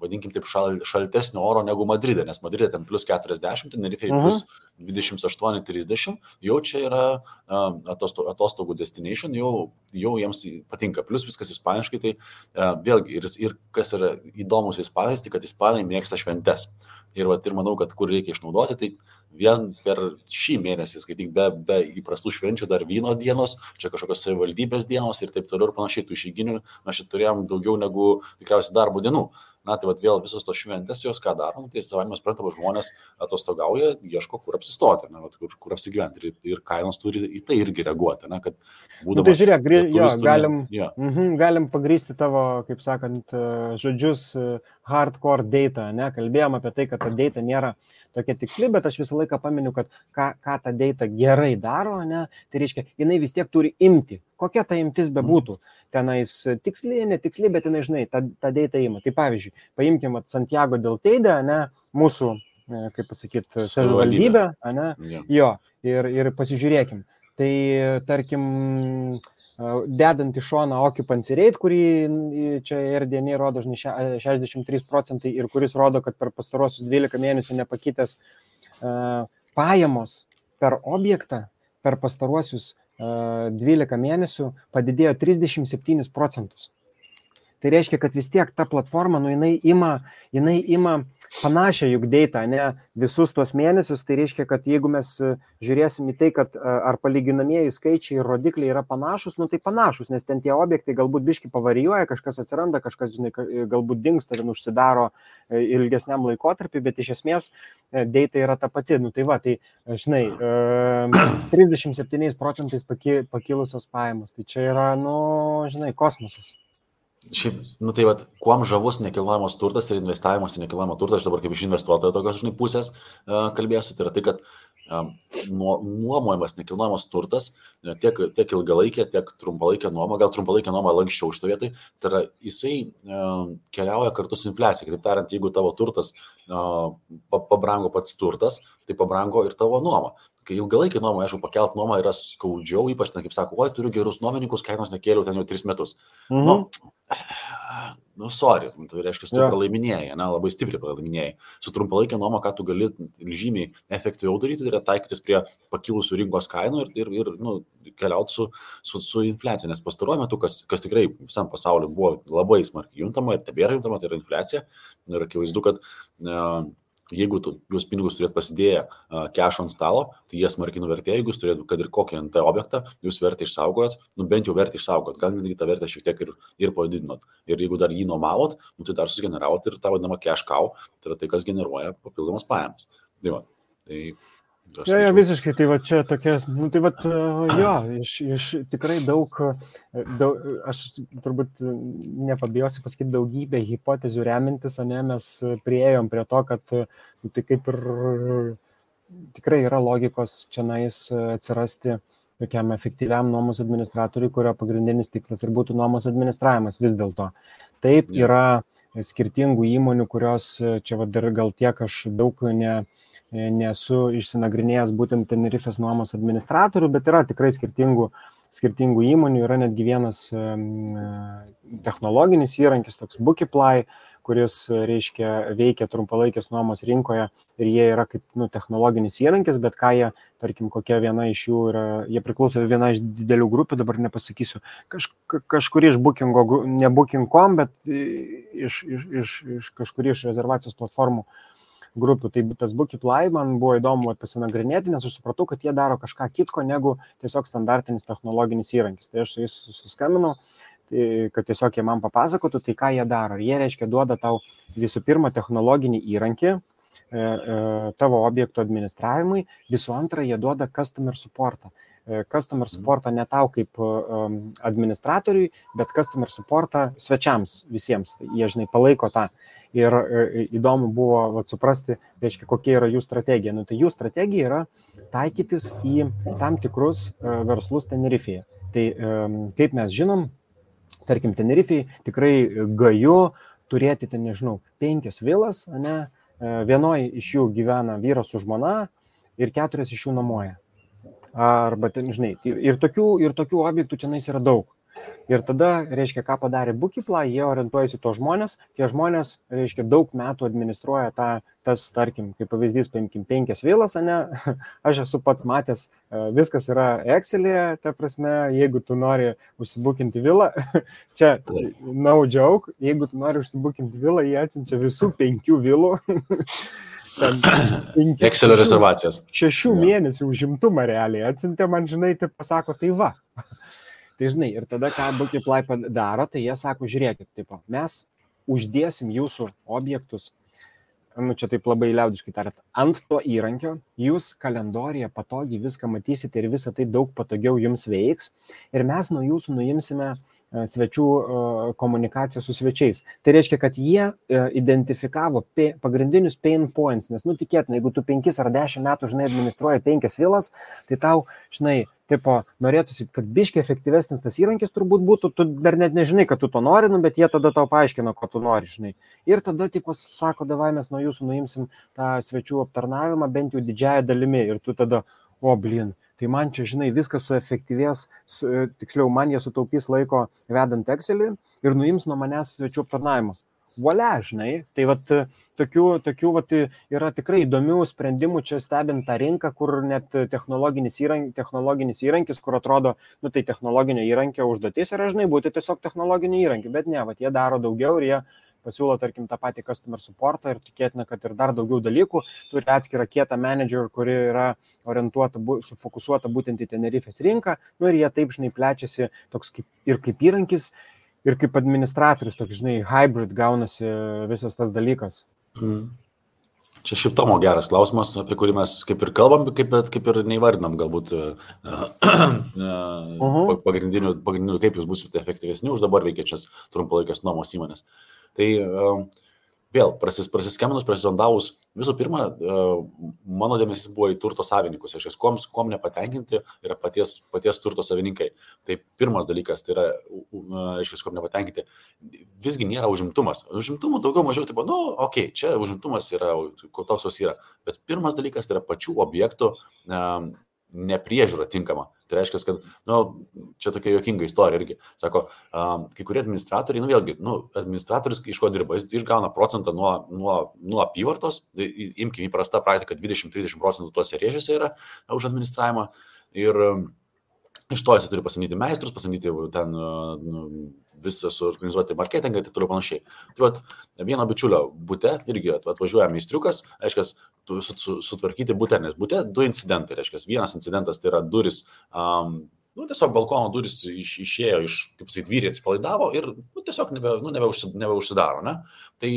vadinkim taip, šaltesnio oro negu Madride, nes Madride ten plus 40, Tenerifei plus 28-30, jau čia yra atostogų destination, jau jiems patinka. Plus viskas ispaniškai, tai vėlgi, ir kas yra įdomus Ispanais, tai kad Ispanai mėgsta šventes. Ir manau, kad kur reikia išnaudoti, tai vien per šį mėnesį, skaityk, be įprastų švenčių dar vyno dienos, čia kažkokios savivaldybės dienos ir taip toliau ir panašiai, tų išeiginių mes čia turėjom daugiau negu tikriausiai darbo dienų. Tai vėl visos tos šventės, jos ką darom, tai savai mes suprantama, žmonės atostogauja, ieško, kur apsistoti, kur apsigyventi ir kainos turi į tai irgi reaguoti, kad būdamas... Tai žiūrėk, galim pagrįsti tavo, kaip sakant, žodžius hardcore data, kalbėjom apie tai, kad ta data nėra tokia tiksli, bet aš visą laiką paminiu, kad ką ta data gerai daro, tai reiškia, jinai vis tiek turi imti, kokia ta imtis bebūtų. Tenais tiksliai, netiksliai, bet jinai, žinai, ta data ima. Tai pavyzdžiui, paimkim Santiago del Teide, mūsų, kaip pasakyti, savivaldybę, jo, ir pasižiūrėkim. Tai, tarkim, dedant į šoną occupancy rate, kurį čia RDN rodo, žinai, 63% ir kuris rodo, kad per pastarosius 12 mėnesių nepakitęs pajamos per objektą per pastaruosius 12 mėnesių padidėjo 37%. Tai reiškia, kad vis tiek ta platforma, jinai ima panašią juk data, visus tuos mėnesius, tai reiškia, kad jeigu mes žiūrėsim į tai, kad ar palyginamieji skaičiai ir rodikliai yra panašus, tai panašus, nes ten tie objektai galbūt biški pavarijuoja, kažkas atsiranda, kažkas, žinai, galbūt dingsta ir užsidaro ilgesniam laikotarpiu, bet iš esmės data yra ta pati. Tai žinai, 37% pakilusios pajamos, tai čia yra, žinai, kosmosas. Šiaip, kuom žavus nekilnojamas turtas ir investavimas į nekilnojamą turtą, aš dabar kaip iš investuotojo tokios, žinai, pusės kalbėsiu, tai yra tai, kad nuomojamas nekilnojamas turtas, tiek ilgalaikė, tiek trumpalaikė nuoma, gal trumpalaikė nuoma lankščiau iš to vietoj, tai yra jisai keliauja kartu su infliacija. Kitaip tariant, jeigu tavo turtas pabrango pats turtas, tai pabrango ir tavo nuoma. Kai ilgalaikį nuomą, aišku, pakelt nuomą yra skaudžiau, ypač ten, kaip sako, oi, turiu gerus nuomininkus, kainos nekėliau ten jau 3 metus. sorry, tai reiškia, tu pralaiminėjai, labai stipriai pralaiminėjai. Su trumpalaikė nuoma, ką tu gali žymiai efektyviau daryti, tai yra taikytis prie pakilusių rinkos kainų ir keliauti su infliacija. Nes pastaruoju metu, kas tikrai visam pasauliu buvo labai smarkiai juntama ir tebėra juntama, tai yra infliacija. Ir akivaizdu, kad jeigu jūs pinigus turėt pasidėję cash ant stalo, tai jie smarkiai nuvertėjo, jeigu jūs turėt, kad ir kokį NT objektą, jūs vertę išsaugojot, bent jau vertę išsaugojot, gal netgi tą vertę šiek tiek ir padidinot. Ir jeigu dar jį nuomavot, tai dar susigeneravot ir tą vadinamą cash cow, tai yra tai, kas generuoja papildomas pajamas. Jo, visiškai, tai va čia tokia, tai va, iš tikrai daug, aš turbūt nepabijosiu pasakyti daugybę hipotezių remintis, mes priėjom prie to, kad tai kaip ir tikrai yra logikos čianais atsirasti tokiam efektyviam nuomos administratoriui, kurio pagrindinis tikslas ir būtų nuomos administravimas vis dėlto. Taip, yra skirtingų įmonių, kurios čia va dar gal tiek aš daug nesu išsinagrinėjęs būtent Tenerifės nuomos administratorių, bet yra tikrai skirtingų įmonių, yra netgi vienas technologinis įrankis, toks Bookiply, kuris, reiškia, veikia trumpalaikės nuomos rinkoje ir jie yra kaip technologinis įrankis, bet ką jie, tarkim, kokia viena iš jų yra, jie priklauso viena iš didelių grupių, dabar nepasakysiu, kažkuri iš Bookingo, ne Booking.com, bet iš kažkuri iš rezervacijos platformų grupių. Tai tas Bookiply man buvo įdomu pasinagrinėti, nes aš supratau, kad jie daro kažką kitko negu tiesiog standartinis technologinis įrankis. Tai aš su jais susiskambinau, kad tiesiog jie man papasakotų, tai ką jie daro. Jie, reiškia, duoda tau visų pirma technologinį įrankį tavo objektų administravimui, visų antra, jie duoda customer supportą. Customer supportą ne tau kaip administratoriui, bet customer supportą svečiams visiems. Jie, žinai, palaiko tą. Ir įdomu buvo suprasti, reiškia, kokia yra jų strategija. Tai jų strategija yra taikytis į tam tikrus verslus Tenerifėje. Tai kaip mes žinom, tarkim, Tenerifėje tikrai gaju turėti, 5 vilas, vienoje iš jų gyvena vyras su žmona ir 4 iš jų nuomoja. Arba, žinai, ir tokių objektų tenais yra daug. Ir tada, reiškia, ką padarė Bookiply, jie orientuojasi to žmonės, tie žmonės, reiškia, daug metų administruoja tas, tarkim, kaip pavyzdys, 5 vilas, aš esu pats matęs, viskas yra Excel'e, ta prasme, jeigu tu nori užsibukinti vilą, čia no joke, jeigu tu nori užsibukinti vilą, jie atsiunčia visų 5 vilų. Excel'o rezervacijas. 6 mėnesių užimtumą realiai atsiuntė man, žinai, tai pasako, tai va. Tai žinai, ir tada, ką Bookiply daro, tai jie sako, žiūrėkit, mes uždėsim jūsų objektus, čia taip labai liaudiškai tariant, ant to įrankio, jūs kalendorijoje patogiai viską matysite ir visą tai daug patogiau jums veiks ir mes nuo jūsų nuimsime svečių komunikaciją su svečiais. Tai reiškia, kad jie identifikavo pagrindinius pain points, nes, tikėtina, jeigu tu 5 ar 10 metų, žinai, administruoji 5 vilas, tai tau, žinai, norėtųsi, kad biškiai efektyvesnis tas įrankis turbūt būtų, tu dar net nežinai, kad tu to nori, bet jie tada tau paaiškina, ko tu nori, žinai. Ir tada, sako, davai mes nuo jūsų nuimsim tą svečių aptarnavimą bent jau didžiąją dalimi ir tu tada, tai man čia, žinai, viskas suefektyvės, tiksliau, man jie sutaupys laiko vedant Excel'į ir nuims nuo manęs svečių aptarnavimą. Valia, žinai, tai tokių yra tikrai įdomių sprendimų čia stebint tą rinką, kur net technologinis įrankis, kur atrodo, tai technologinio įrankio užduotis yra, žinai, būti tiesiog technologinio įrankį, bet ne, jie daro daugiau ir jie pasiūlo, tarkim, tą patį customer supportą ir tikėtina, kad ir dar daugiau dalykų, turi atskirą kietą manager, kuri yra orientuota, sufokusuota būtent į Tenerifės rinką, ir jie taip, žinai, plečiasi toks kaip įrankis, ir kaip administratorius, toks, žinai, hybrid gaunasi visas tas dalykas. Čia šiaip Tomo geras klausimas, apie kurį mes kaip ir kalbam, kaip ir neįvardinam galbūt pagrindinių, kaip jūs būsite efektyvesni už dabar veikiančias trumpalaikės nuomos įmonės. Tai vėl, prasiskambinus, prasizondavus, visų pirma, mano dėmesys buvo į turto savininkus, aš kuom nepatenkinti yra paties turto savininkai. Tai pirmas dalykas, tai yra, kuom nepatenkinti, visgi nėra užimtumas. Užimtumų daugiau mažiau, čia užimtumas yra, toks jos yra. Bet pirmas dalykas tai yra pačių objektų nepriežiūra tinkama. Tai reiškia, kad, čia tokia juokinga istorija irgi. Sako, kai kurie administratoriai, vėlgi, administratorius iš ko dirba, jis išgauna procentą nuo apyvartos, imkime įprasta praktika, 20-30% tuose rėžiuose yra už administravimą ir iš to jis turi pasamdyti meistrus, pasamdyti ten visą suorganizuoti marketingą ir taip toliau panašiai. Tai vieno bičiulio bute irgi atvažiuoja meistriukas, reiškia, sutvarkyti bute, nes bute 2 incidentai, reiškia, vienas incidentas tai yra duris, tiesiog balkono duris išėjo iš, kaip sakyt, vyriai atsipalaidavo ir tiesiog nebeužsidaro, ne? Tai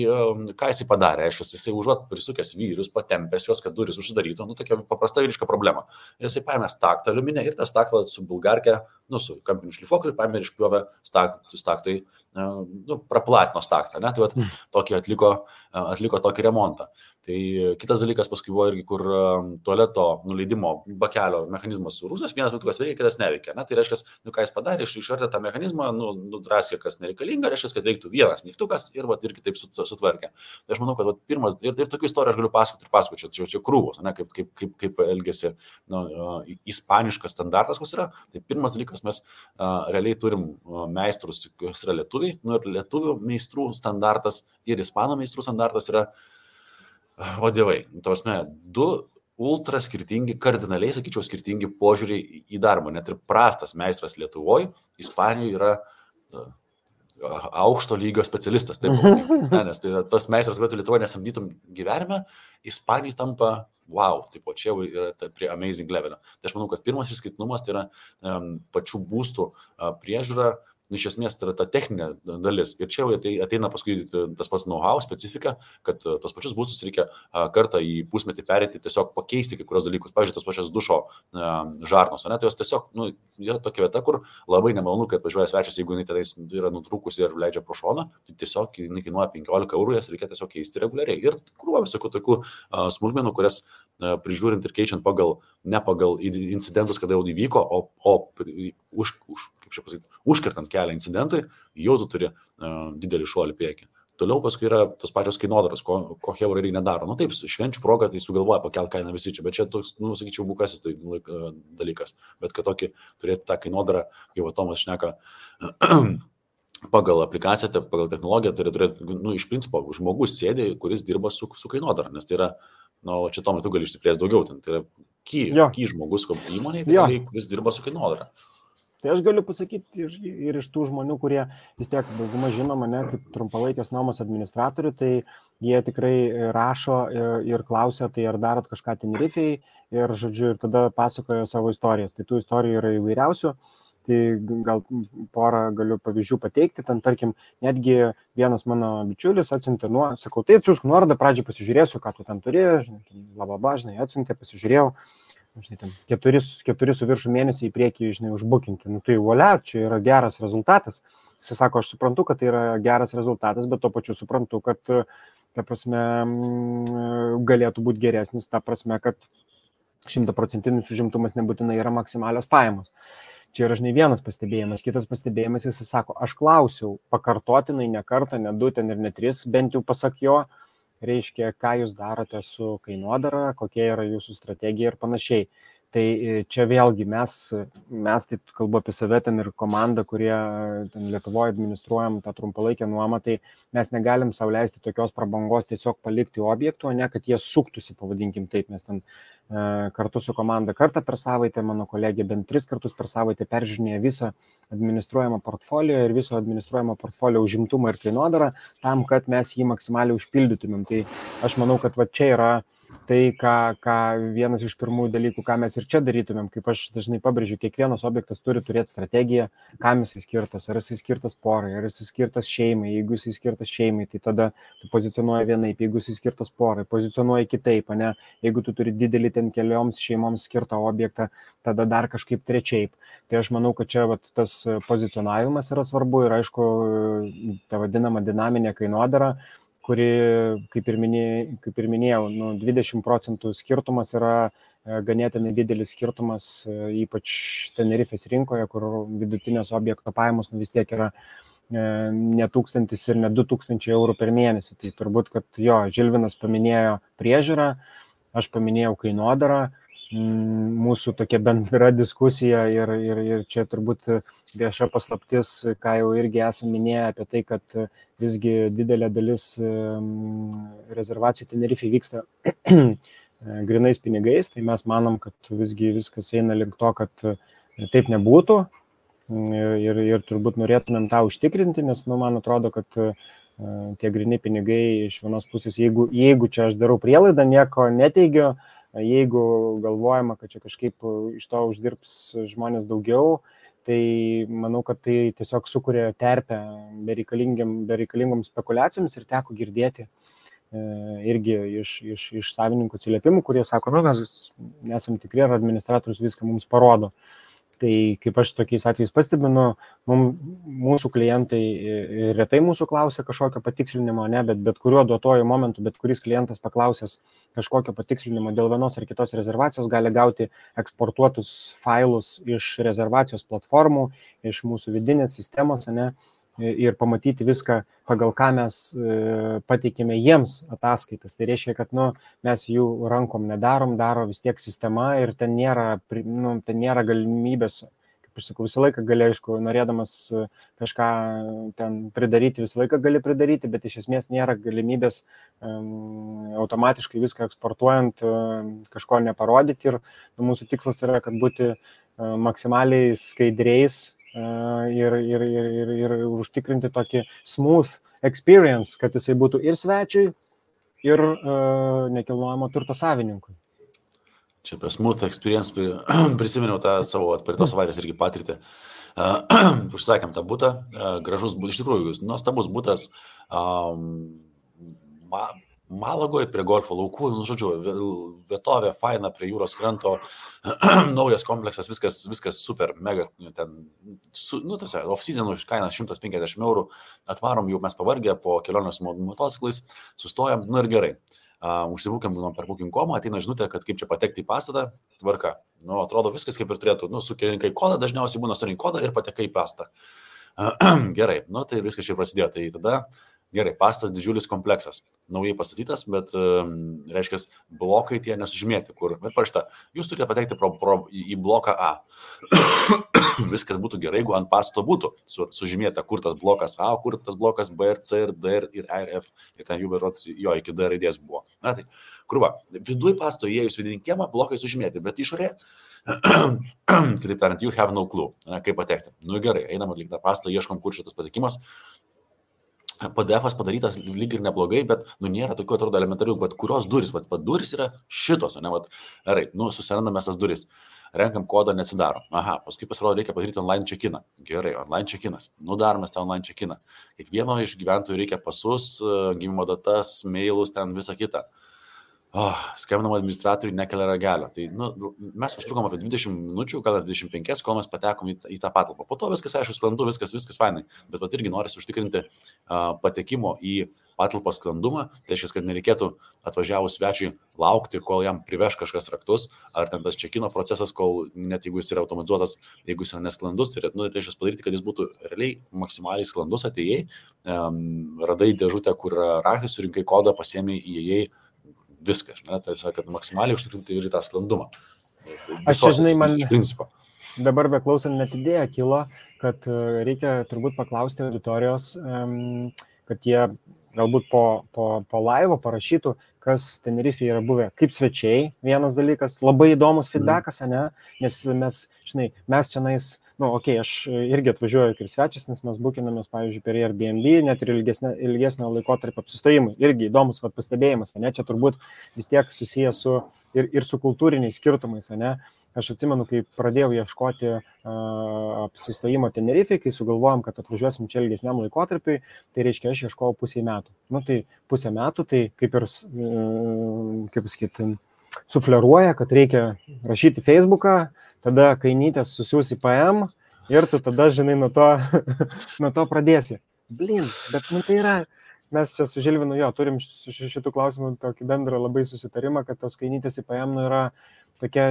ką jisai padarė, reiškia, jisai užuot prisukęs vyrius, patempęs juos, kad duris užsidarytų, tokia paprasta vyriška problema. Ir jisai paėmė staktą aliuminę ir tą staktą su bulgarke, su kampiniu šlifuokliu, paėmė ir išpjovė staktai, praplatino staktą, ne? Tai tokį atliko tokį remontą. Tai kitas dalykas paskui buvo irgi, kur tualeto nuleidimo bakelio mechanizmas surūzęs, vienas mygtukas veikia, kitas neveikia. Ne? Tai reiškia, ką jis padarė, išartė tą mechanizmą, nudraskė, kas nereikalinga, reiškia, kad veiktų vienas mygtukas ir irgi taip sutvarkė. Tai aš manau, kad pirmas, ir tokių istorijų aš galiu pasakoti, čia krūvos, ne? Kaip elgesi ispaniškas standartas, kas yra. Tai pirmas dalykas, mes realiai turim meistrus, kas yra lietuviai, ir lietuvių meistrų standartas ir ispanų meistrų standartas yra o dievai, tavasme, 2 ultra skirtingi, kardinaliai, sakyčiau, skirtingi požiūriai į darbą. Net ir prastas meistras Lietuvoje, Ispanijoje yra aukšto lygio specialistas. Taip, nes tai tas meistras, kurį Lietuvoje nesamdytum gyvenime, Ispanijoje tampa wow, taip, čia yra prie amazing levelio. Tai aš manau, kad pirmas išskirtinumas tai yra pačių būstų priežiūra. Iš esmės tai yra ta techninė dalis. Ir čia ateina paskui tas pats know-how, specifika, kad tos pačius būstus reikia kartą į pusmetį perėti, tiesiog pakeisti kai kurios dalykus. Pavyzdžiui, tos pačios dušo žarnos. Ne? Tai jos tiesiog yra tokia vieta, kur labai nemalonu, kad važiuoja svečias, jeigu jinai tenais yra nutrūkusi ir leidžia pro šoną, tai tiesiog jinai kainuoja 15 €, jas reikia tiesiog keisti reguliariai. Ir krūva visokių tokių smulkmenų, kurias prižiūrint ir keičiant ne pagal incidentus, kada jau įvyko, užkertant kelią incidentui, jau tu turi didelį šuolį priekį. Toliau paskui yra tos pačios kainodaros, ko Hebra irgi nedaro. Taip, švenčių proga tai sugalvoja pakelt kainą visi čia, bet čia toks, sakyčiau, bukasis tai dalykas. Bet kad tokį turėti tą kainodarą, kaip Tomas šneka, pagal aplikaciją, pagal technologiją, turi turėti, iš principo, žmogus sėdė, kuris dirba su kainodara, nes tai yra, čia Tomai, tu gali išsiplėsti daugiau, tai yra key žmogus įmonėje, kuris dirba su kainodara. Tai aš galiu pasakyti ir iš tų žmonių, kurie vis tiek dauguma žino mane kaip trumpalaikės nuomos administratorių, tai jie tikrai rašo ir klausia, tai ar darot kažką Tenerifei ir, žodžiu, ir tada pasakoja savo istorijas. Tai tų istorijų yra įvairiausių, tai gal porą galiu pavyzdžių pateikti. Ten, tarkim, netgi vienas mano bičiulis atsiuntė, sakau, tai atsiųsk nuorodą, pradžiai pasižiūrėsiu, ką tu ten turi, žinai, atsiuntė, pasižiūrėjau. Žinai, ten 4 su viršų mėnesį į priekį, žinai, užbukinti. Tai volia, čia yra geras rezultatas. Jis sako, aš suprantu, kad tai yra geras rezultatas, bet tuo pačiu suprantu, kad, ta prasme, galėtų būti geresnis, ta prasme, kad 100% užimtumas nebūtinai yra maksimalios pajamos. Čia yra, žinai, vienas pastebėjimas. Kitas pastebėjimas, jis sako, aš klausiau pakartotinai ne kartą, ne 2 ten ir ne 3, bent jau pasak jo, reiškia, ką jūs darote su kainodara, kokia yra jūsų strategija ir panašiai. Tai čia vėlgi mes taip kalbu apie save ten ir komandą, kurie ten Lietuvoje administruojam tą trumpalaikę nuomą, tai mes negalim sau leisti tokios prabangos tiesiog palikti objektų, o ne kad jie suktųsi, pavadinkim taip. Mes ten kartu su komanda kartą per savaitę, mano kolegė bent 3 kartus per savaitę peržiūrinėja visą administruojamą portfolio ir viso administruojamą portfolio užimtumą ir kainodarą, tam, kad mes jį maksimaliai užpildytumėm. Tai aš manau, kad va čia yra tai, ką vienas iš pirmųjų dalykų, ką mes ir čia darytumėm, kaip aš dažnai pabrėžiu, kiekvienas objektas turi turėti strategiją, kam jisai skirtas, ar jisai skirtas porai, ar jisai skirtas šeimai. Jeigu jisai skirtas šeimai, tai tada tu pozicionuoji vienaip, jeigu jisai skirtas porai, pozicionuoji kitaip, ne? Jeigu tu turi didelį ten kelioms šeimoms skirtą objektą, tada dar kažkaip trečiaip. Tai aš manau, kad čia tas pozicionavimas yra svarbu ir aišku, ta vadinama dinaminė kainodara, kuri, kaip ir minėjau, 20% skirtumas yra ganėtinai didelis skirtumas, ypač Tenerifės rinkoje, kur vidutinės objekto pajamos vis tiek yra ne 1000 ir ne 2000 eurų per mėnesį. Tai turbūt, kad Žilvinas paminėjo priežiūrą, aš paminėjau kainodarą, mūsų tokia bendra diskusija ir čia turbūt vieša paslaptis, ką jau irgi esame minėję apie tai, kad visgi didelė dalis rezervacijų Tenerifei vyksta grinais pinigais, tai mes manom, kad visgi viskas eina link to, kad taip nebūtų ir turbūt norėtumėm tą užtikrinti, nes man atrodo, kad tie grini pinigai iš vienos pusės, jeigu čia aš darau prielaidą, nieko neteigiu, jeigu galvojama, kad čia kažkaip iš to uždirbs žmonės daugiau, tai manau, kad tai tiesiog sukuria terpę bereikalingom spekulacijoms ir teko girdėti irgi iš savininkų atsiliepimų, kurie sako, mes nesam tikri, ar administratorius viską mums parodo. Tai kaip aš tokiais atvejais pastebinu, mūsų klientai retai mūsų klausia kažkokio patikslinimo, ne, bet kuriuo duotuoju momentu, bet kuris klientas paklausęs kažkokio patikslinimo dėl vienos ar kitos rezervacijos gali gauti eksportuotus failus iš rezervacijos platformų, iš mūsų vidinės sistemos, ne, ir pamatyti viską, pagal ką mes pateikėme jiems ataskaitas. Tai reiškia, kad mes jų rankom nedarom, daro vis tiek sistema ir ten nėra galimybės, kaip aš sakau, visą laiką gali, aišku, norėdamas kažką ten pridaryti, visą laiką gali pridaryti, bet iš esmės nėra galimybės automatiškai viską eksportuojant kažko neparodyti ir mūsų tikslas yra, kad būti maksimaliai skaidriais ir užtikrinti tokį smooth experience, kad jisai būtų ir svečiui, ir nekilnojamo turto savininkui. Čia apie smooth experience prisiminiau tą savo praeitos savaitės irgi patirtį. Užsakėm tą butą, gražus butas, iš tikrųjų, nuostabus butas Malagoje prie golfo laukų, žodžiu, vietovė, faina prie jūros kranto, naujas kompleksas, viskas super, mega, ten, off-season kainas 150 €, atvarom jau mes pavargę po kelionės motociklais, sustojam, ir gerai. Užsibūkiam per booking.com, ateina žinutė, kad kaip čia patekti į pastatą, tvarka. Atrodo viskas kaip ir turėtų, sukirinkai kodą, dažniausiai būna surinkai kodą ir patekai į pastatą. Gerai, tai viskas čia prasidėjo, tai tada gerai, pastatas didžiulis kompleksas, naujai pastatytas, bet, reiškia, blokai tie nesužymėti, kur, bet parašyta, jūs turite patekti į bloką A. Viskas būtų gerai, jeigu ant pastato būtų sužymėta, kur tas blokas A, kur tas blokas B ir C ir D ir E ir F, ir ten jų berods jo iki D raidės buvo. Na tai, kurva, viduj pastato įėjus vidinį kiemą, blokai sužymėti, bet išorė, kitaip tariant, you have no clue, kaip patekti. Gerai, einam atlikti tą pastatą, ieškom, kur šitas patekimas. PDF-as padarytas lyg ir neblogai, bet nėra tokių, atrodo, elementarių, bet kurios duris, duris yra šitos, ne, gerai, susirandame tas duris, renkam kodą, neatsidaro. Aha, paskui pasirodo, reikia padaryti online check-iną. Gerai, online check-inas. Darome tą online check-iną. Kiekvieno iš gyventojų reikia pasus, gimimo datas, mailus, ten visą kitą. Skambinam administratoriui, nekelia ragelio. Tai mes užtrukom apie 20 minučių, gal 25, kol mes patekom į tą patalpą. Po to viskas, aišku, sklandu, viskas fainai. Bet irgi norisi užtikrinti patekimo į patalpą sklandumą. Tai reiškia, kad nereikėtų atvažiavus svečiui laukti, kol jam priveš kažkas raktus, ar ten tas check-ino procesas, kol net jeigu jis yra automatizuotas, jeigu jis yra nesklandus, tai reiškia padaryti, kad jis būtų realiai maksimaliai sklandus, atėjai, radai dėžutę, kur raktas, surinkai kodą, pasiėmei, įėjai. Viskas, tai kad maksimaliai užtikrinti ir tą sklandumą. Aš čia, žinai, man iš principo. Dabar beklausant net idėja kilo, kad reikia turbūt paklausti auditorijos, kad jie galbūt po laivo parašytų, kas Tenerifėje yra buvę kaip svečiai. Vienas dalykas, labai įdomus feedbackas, ne? Nes mes čianais, aš irgi atvažiuoju kaip svečias, nes mes bukinamės, pavyzdžiui, per Airbnb, net ir ilgesnio laikotarpio apsistojimui. Irgi įdomus pastebėjimas, ne? Čia turbūt vis tiek susijęs ir su kultūriniais skirtumais, ne? Aš atsimenu, kai pradėjau ieškoti apsistojimo Tenerifėje, kai sugalvojom, kad atvažiuosim čia ilgesniam laikotarpiui, tai reiškia, aš ieškojau pusę metų. Tai pusę metų, tai kaip ir, sufleruoja, kad reikia rašyti Facebooką, tada kainytės susiūsi PM ir tu tada, žinai, nuo to pradėsi. Blin, bet tai yra, mes čia su Žilvinu turim šitų klausimų tokį bendrą labai susitarimą, kad tos kainytės į PM yra tokia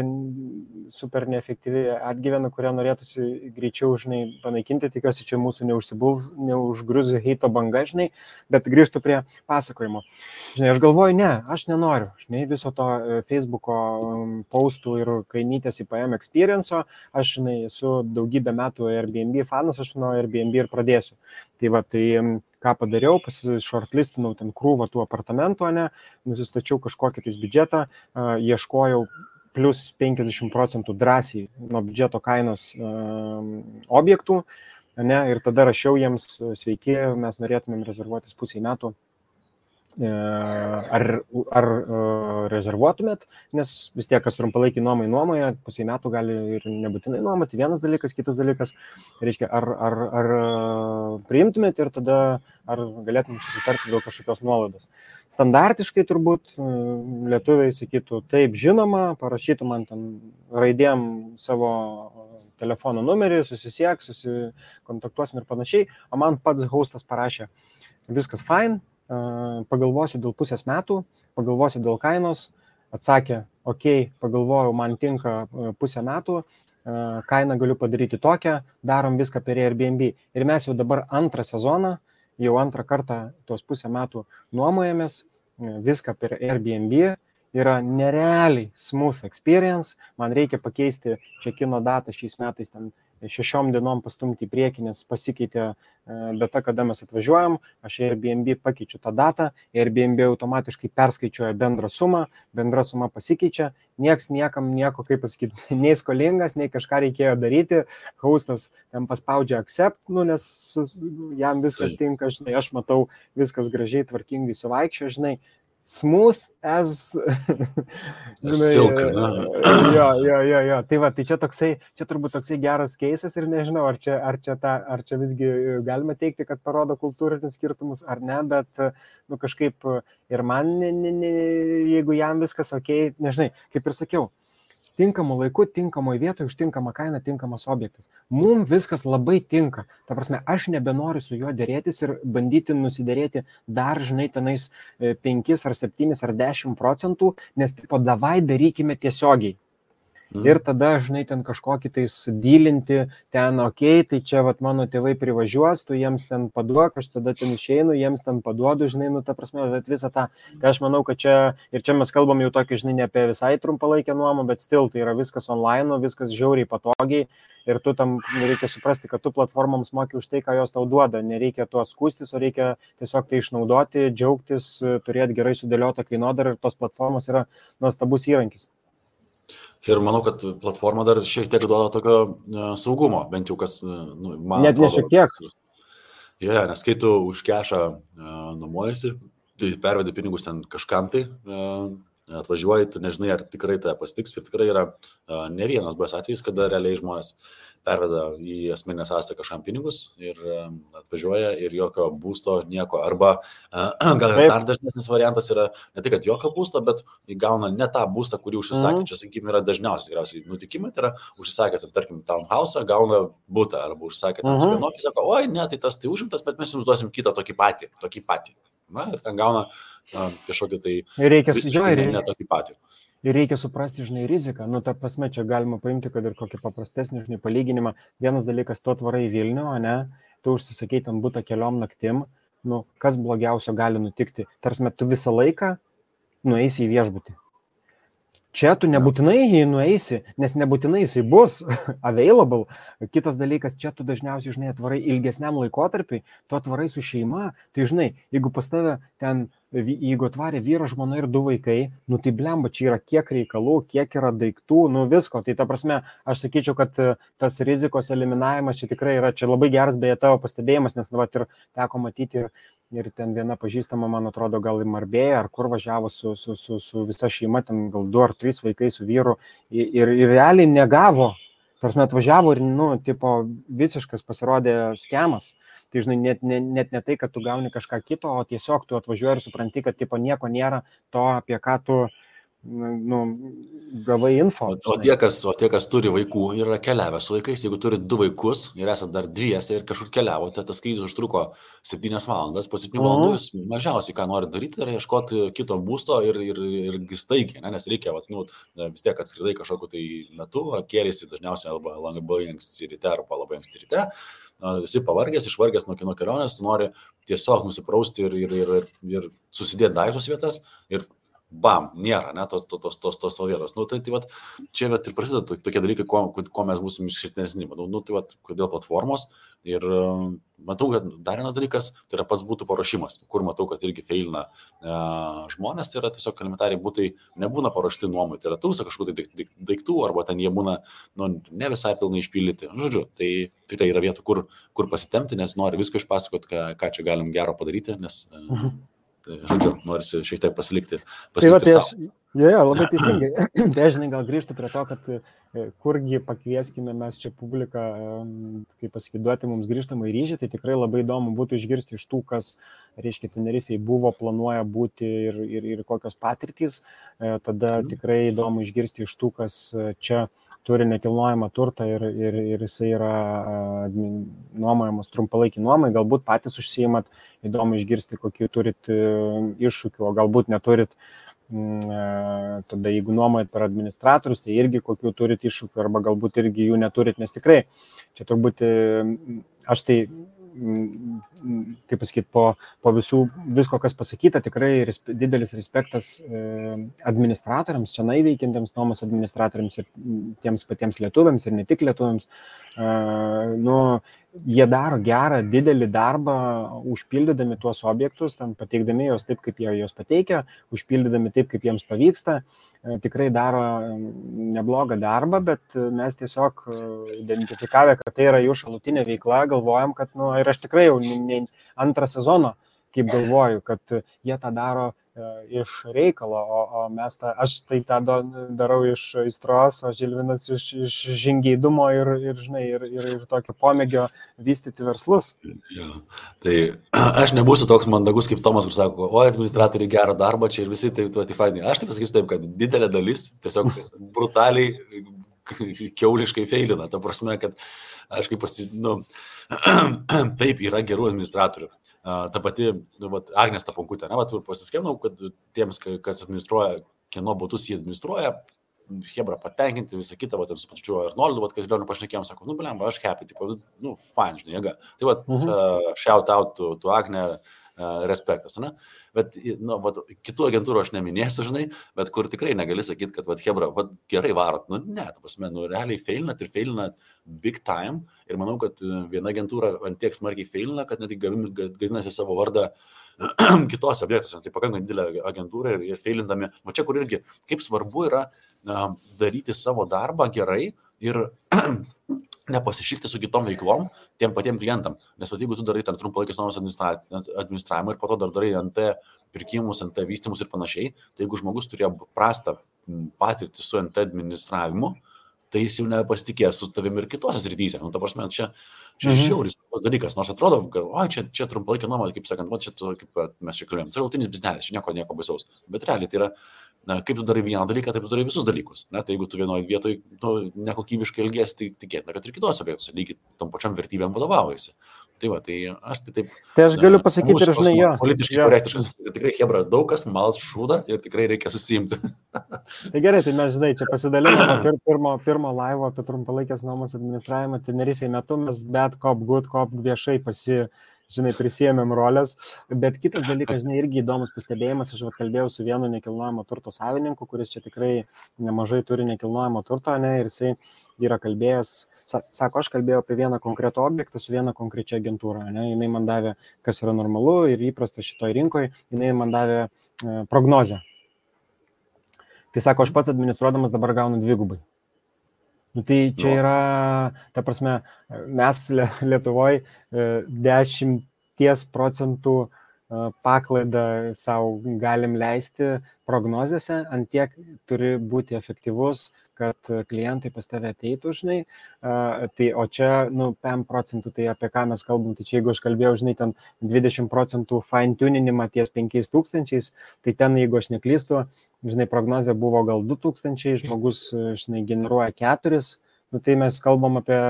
super neefektyvi atgyvena, kurią norėtųsi greičiau, žinai, panaikinti, tikiuosi, čia mūsų neužgrius heito banga, žinai, bet grįžtų prie pasakojimo. Žinai, aš galvoju, ne, aš nenoriu, žinai, viso to Facebook'o postų ir kainytės IPM experience'o, aš, žinai, esu daugybę metų Airbnb fanas, aš nuo Airbnb ir pradėsiu. Tai va, tai ką padariau, shortlistinau ten krūvą tų apartamentų, ne, nusistačiau kažkokį tais biudžetą, ieškojau plus 50% drąsiai nuo biudžeto kainos objektų, ne, ir tada rašiau jiems, sveiki, mes norėtumėm rezervuotis pusiai metų. Ar rezervuotumėt, nes vis tiek, kas trumpalaikį nuomoja, pusiai metų gali ir nebūtinai nuomoti, vienas dalykas, kitas dalykas, reiškia, ar priimtumėt ir tada ar galėtum susitarti dėl kažkokios nuolaidos. Standartiškai turbūt lietuviai sakytų, taip, žinoma, parašytų man ten raidėm savo telefono numerį, susisiek, susikontaktuosim ir panašiai, o man pats hostas parašė, viskas fine, pagalvosiu dėl pusės metų, pagalvosiu dėl kainos, atsakė, ok, pagalvojau, man tinka pusę metų, kainą galiu padaryti tokią, darom viską per Airbnb. Ir mes jau dabar antrą sezoną, jau antrą kartą tos pusę metų nuomojamės, viską per Airbnb, yra nerealiai smooth experience, man reikia pakeisti check-in datą šiais metais ten 6 dienom pastumti į priekį, nes pasikeitė data, kada mes atvažiuojam, aš Airbnb pakeičiu tą datą, Airbnb automatiškai perskaičiuoja bendrą sumą, bendra suma pasikeičia, nieks niekam nieko, kaip pasakyti, nei skolingas, nei kažką reikėjo daryti, hostas ten paspaudžia accept, nes jam viskas tinka, žinai, aš matau viskas gražiai, tvarkingai suvaikščio, žinai, smooth as silk. Jo. Tai va, tai čia turbūt toksai geras keisas ir nežinau, ar čia visgi galima teikti, kad parodo kultūrinius skirtumus ar ne, bet kažkaip ir man, jeigu jam viskas ok, nežinai, kaip ir sakiau, tinkamų laikų, tinkamoje vietoje, už tinkamą kainą, tinkamas objektas. Mums viskas labai tinka. Ta prasme, aš nebenoriu su juo dėrėtis ir bandyti nusidėrėti dar, žinai, tenais 5 ar 7 ar 10%, nes tipo, davai darykime tiesiogiai. Ir tada, žinai, ten kažkokį tais dylinti, ten, ok, tai čia vat, mano tėvai privažiuos, tu jiems ten paduok, aš tada ten išeinu, jiems ten paduodu, žinai, ta prasme, visą tą. Tai aš manau, kad čia, ir čia mes kalbam jau tokį, žinai, ne apie visai trumpalaikę nuomą, bet still, tai yra viskas online, viskas žiauriai patogiai ir tu tam reikia suprasti, kad tu platformoms moki už tai, ką jos tau duoda, nereikia tuo skūstis, o reikia tiesiog tai išnaudoti, džiaugtis, turėti gerai sudėliotą kainodarą ir tos platformos yra nuostabus įrankis. Ir manau, kad platforma dar šiek tiek duoda tokio saugumo, bent jau kas, man net ne šiek tiek. Nes kai tu už kešą nuomojasi, tai pervedi pinigus ten kažkam tai, atvažiuoji, tu nežinai, ar tikrai tai pasitiks. Ir tikrai yra ne vienas buvęs atvejis, kada realiai žmonės perveda į asmeninę sąskaitą kažkam pinigus ir atvažiuoja ir jokio būsto, nieko. Arba gal dar dažnesnis variantas yra ne tai, kad jokio būsto, bet įgauna ne tą būstą, kurį užsisakė. Čia, sakykime, yra dažniausiai tikriausiai nutikimai, tai yra užsisakė, tarkim, townhouse, gauna būtą, arba užsakė ten su vienokį, sako, oi, ne, tai tas tai užimtas, bet mes jums duosim kitą tokį patį. Na, ir ten gauna kažkokį tai ne tokį patį. Ir reikia suprasti, žinai, riziką. Ta prasme, čia galima paimti, kad ir kokį paprastesnį, žinai, palyginimą. Vienas dalykas, tu atvarai į Vilnių, ne, tu užsisakai ten butą keliom naktim, kas blogiausio gali nutikti. Tarsi, tu visą laiką nueisi į viešbutį. Čia tu nebūtinai jį nueisi, nes nebūtinai jisai bus available. Kitas dalykas, čia tu dažniausiai, žinai, atvarai ilgesniam laikotarpiui, tu atvarai su šeima, tai, žinai, jeigu pas tave ten, jeigu atvarė vyras, žmona ir 2 vaikai, tai blemba, čia yra kiek reikalų, kiek yra daiktų, visko. Tai ta prasme, aš sakyčiau, kad tas rizikos eliminavimas čia tikrai yra, čia labai geras beje tavo pastebėjimas, nes ir teko matyti ir ten viena pažįstama, man atrodo, gal į Marbėją, ar kur važiavo su visa šeima, ten gal 2 ar 3 vaikai su vyru ir realiai negavo, tarsi atvažiavo ir, tipo, visiškas pasirodė skemas. Tai, žinai, net ne tai, kad tu gauni kažką kito, o tiesiog tu atvažiuoji ir supranti, kad, tipo, nieko nėra to, apie ką tu gavai info. O tie, kas turi vaikų ir yra keliavę su vaikais, jeigu turi 2 vaikus ir esate dar dviese ir kažkur keliavote, tas skrydis užtruko 7 valandas, po 7 valandų jūs mažiausiai, ką nori daryti, yra ieškoti kito būsto ir staigiai, nes reikia, vis tiek atskridai kažkokiu tai metu, kėlėsi dažniausiai arba labai anksti ryte arba labai anksti ryte, visi pavargęs, išvargęs nuo kelionės, tu nori tiesiog nusiprausti ir susidėti daiktus vietas ir bam, nėra, ne, tos vietos. Tai vat, čia vat, ir prasideda tokie dalykai, ko mes būsim išskirtinesni. Tai vat, kodėl platformos. Ir matau, kad dar vienas dalykas, tai yra pats būtų paruošimas, kur matau, kad irgi feilina žmonės, tai yra tiesiog elementariai būtai nebūna paruošti nuomai. Tai yra tūsa kažkokių daiktų, arba ten jie būna ne visai pilnai išpildyti. Žodžiu, tai tikrai yra vietų, kur pasitemti, nes nori visko išpasakoti, ką čia galim gero padaryti, nes... Žodžiu, norisi šiek tiek pasilikti savo. Labai teisingai. Tai žinai, gal grįžtų prie to, kad kurgi pakvieskime mes čia publiką, kaip pasiduoti mums grįžtamą į ryšį, tai tikrai labai įdomu būtų išgirsti iš tų, kas, reiškia, Tenerifei buvo, planuoja būti ir kokios patirtys. Tada tikrai įdomu išgirsti iš tų, kas čia turi nekilnojamą turtą ir jisai yra nuomojamas trumpalaikį nuomai, galbūt patys užsiimat, įdomu išgirsti, kokių turit iššūkių, o galbūt neturit, tada jeigu nuomojat per administratorius, tai irgi kokių turit iššūkių, arba galbūt irgi jų neturit, nes tikrai, čia turbūt aš tai, kaip pasakyti, po visko, kas pasakyta, tikrai didelis respektas administratoriams, čia veikiantiems nuomos administratoriams ir tiems patiems lietuviams ir ne tik lietuviams. Jie daro gerą, didelį darbą, užpildydami tuos objektus, pateikdami juos taip, kaip jie juos pateikia, užpildydami taip, kaip jiems pavyksta. Tikrai daro neblogą darbą, bet mes tiesiog identifikavę, kad tai yra jų šalutinė veikla, galvojam, kad, ir aš tikrai jau antrą sezoną, kaip galvoju, kad jie tą daro iš reikalo, o aš tai tą darau iš aistros, o Žilvinas iš žingeidumo ir tokio pomėgio vystyti verslus. Ja. Tai aš nebūsiu toks mandagus kaip Tomas, kur sako, administratoriai gerą darbą čia ir visi tai fainai. Aš tai pasakysiu taip, kad didelė dalis tiesiog brutaliai kiauliškai feilina. Ta prasme, kad aš kaip taip yra gerų administratorių. Ta pati Agnės Taponkutė, ir pasiskėnau, kad tiems, kas administruoja, kieno butus jie administruoja, hebra patenkinti, visą kitą, ir su pačiu Arnoldu, kas Lioniu pašnekėjom, sako, blemba, aš happy, fine, žinai, jėga. Tai shout out to Agnė, respektas, ne? Bet, kitų agentūrų aš neminėsiu, žinai, bet kur tikrai negali sakyti, kad, hebra, gerai varot, ne, ta prasme, realiai feilinat ir feilinat big time ir manau, kad viena agentūra ant tiek smarkiai feilina, kad net gadinasi savo vardą kitose objektuose, tai pakankamai didelė agentūra ir feilindami, čia kur irgi, kaip svarbu yra daryti savo darbą gerai ir nepasišikti su kitom veiklom, tiem patiem klientam. Nes jeigu tu darai ten trumpalaikės nuomos administravimą ir po to dar darai NT pirkimus, NT vystymus ir panašiai, tai jeigu žmogus turėjo prastą patirtį su NT administravimu, tai jis jau nepasitikės su tavimi ir kitose srityse. Ta prasme, čia žiauris dalykas, nors atrodo, kad čia trumpalaikė nuoma, kaip sakant, kaip mes čia kalbėjom, tai rautinis biznelis, čia nieko baisaus. Bet realiai tai yra, kaip tu darai vieną dalyką, taip tu darai visus dalykus. Tai jeigu tu vienoje vietoje nekokybiškai elgiesi, tai tikėtina, kad ir kitose vietose lygiai tom pačiam vertybėm vadovaujasi. Tai aš tai taip... Tai aš galiu pasakyti ir žinai jo. Politiškai korektiškas. Tikrai, hebra, daug kas malt šūdą ir tikrai reikia susiimti. Tai gerai, tai mes, žinai, čia pasidalinome pirmo laivo apie trumpalaikės nuomos administravimą Tenerifei metu, mes bet kop viešai prisėmėm rolės, bet kitas dalykas, irgi įdomus pastebėjimas, aš kalbėjau su vienu nekilnojamo turto savininku, kuris čia tikrai nemažai turi nekilnojamo turto, ir jisai yra kalbėjęs, sako, aš kalbėjau apie vieną konkretų objektą su viena konkrečia agentūra, jinai man davė, kas yra normalu ir įprasta šitoj rinkoje, jinai man davė prognozę. Tai sako, aš pats administruodamas dabar gaunu 2. Tai čia yra, ta prasme, mes Lietuvoje 10% paklaidą savo galim leisti prognozėse, ant tiek turi būti efektyvus, kad klientai pas tave ateitų, žinai. Tai, o čia, 5%, tai apie ką mes kalbam, tai čia jeigu aš kalbėjau, žinai, ten 20% fine tuninimą ties 5000, tai ten, jeigu aš neklystu, žinai, prognozė buvo gal 2000, žmogus, žinai, generuoja 4, tai mes kalbam apie,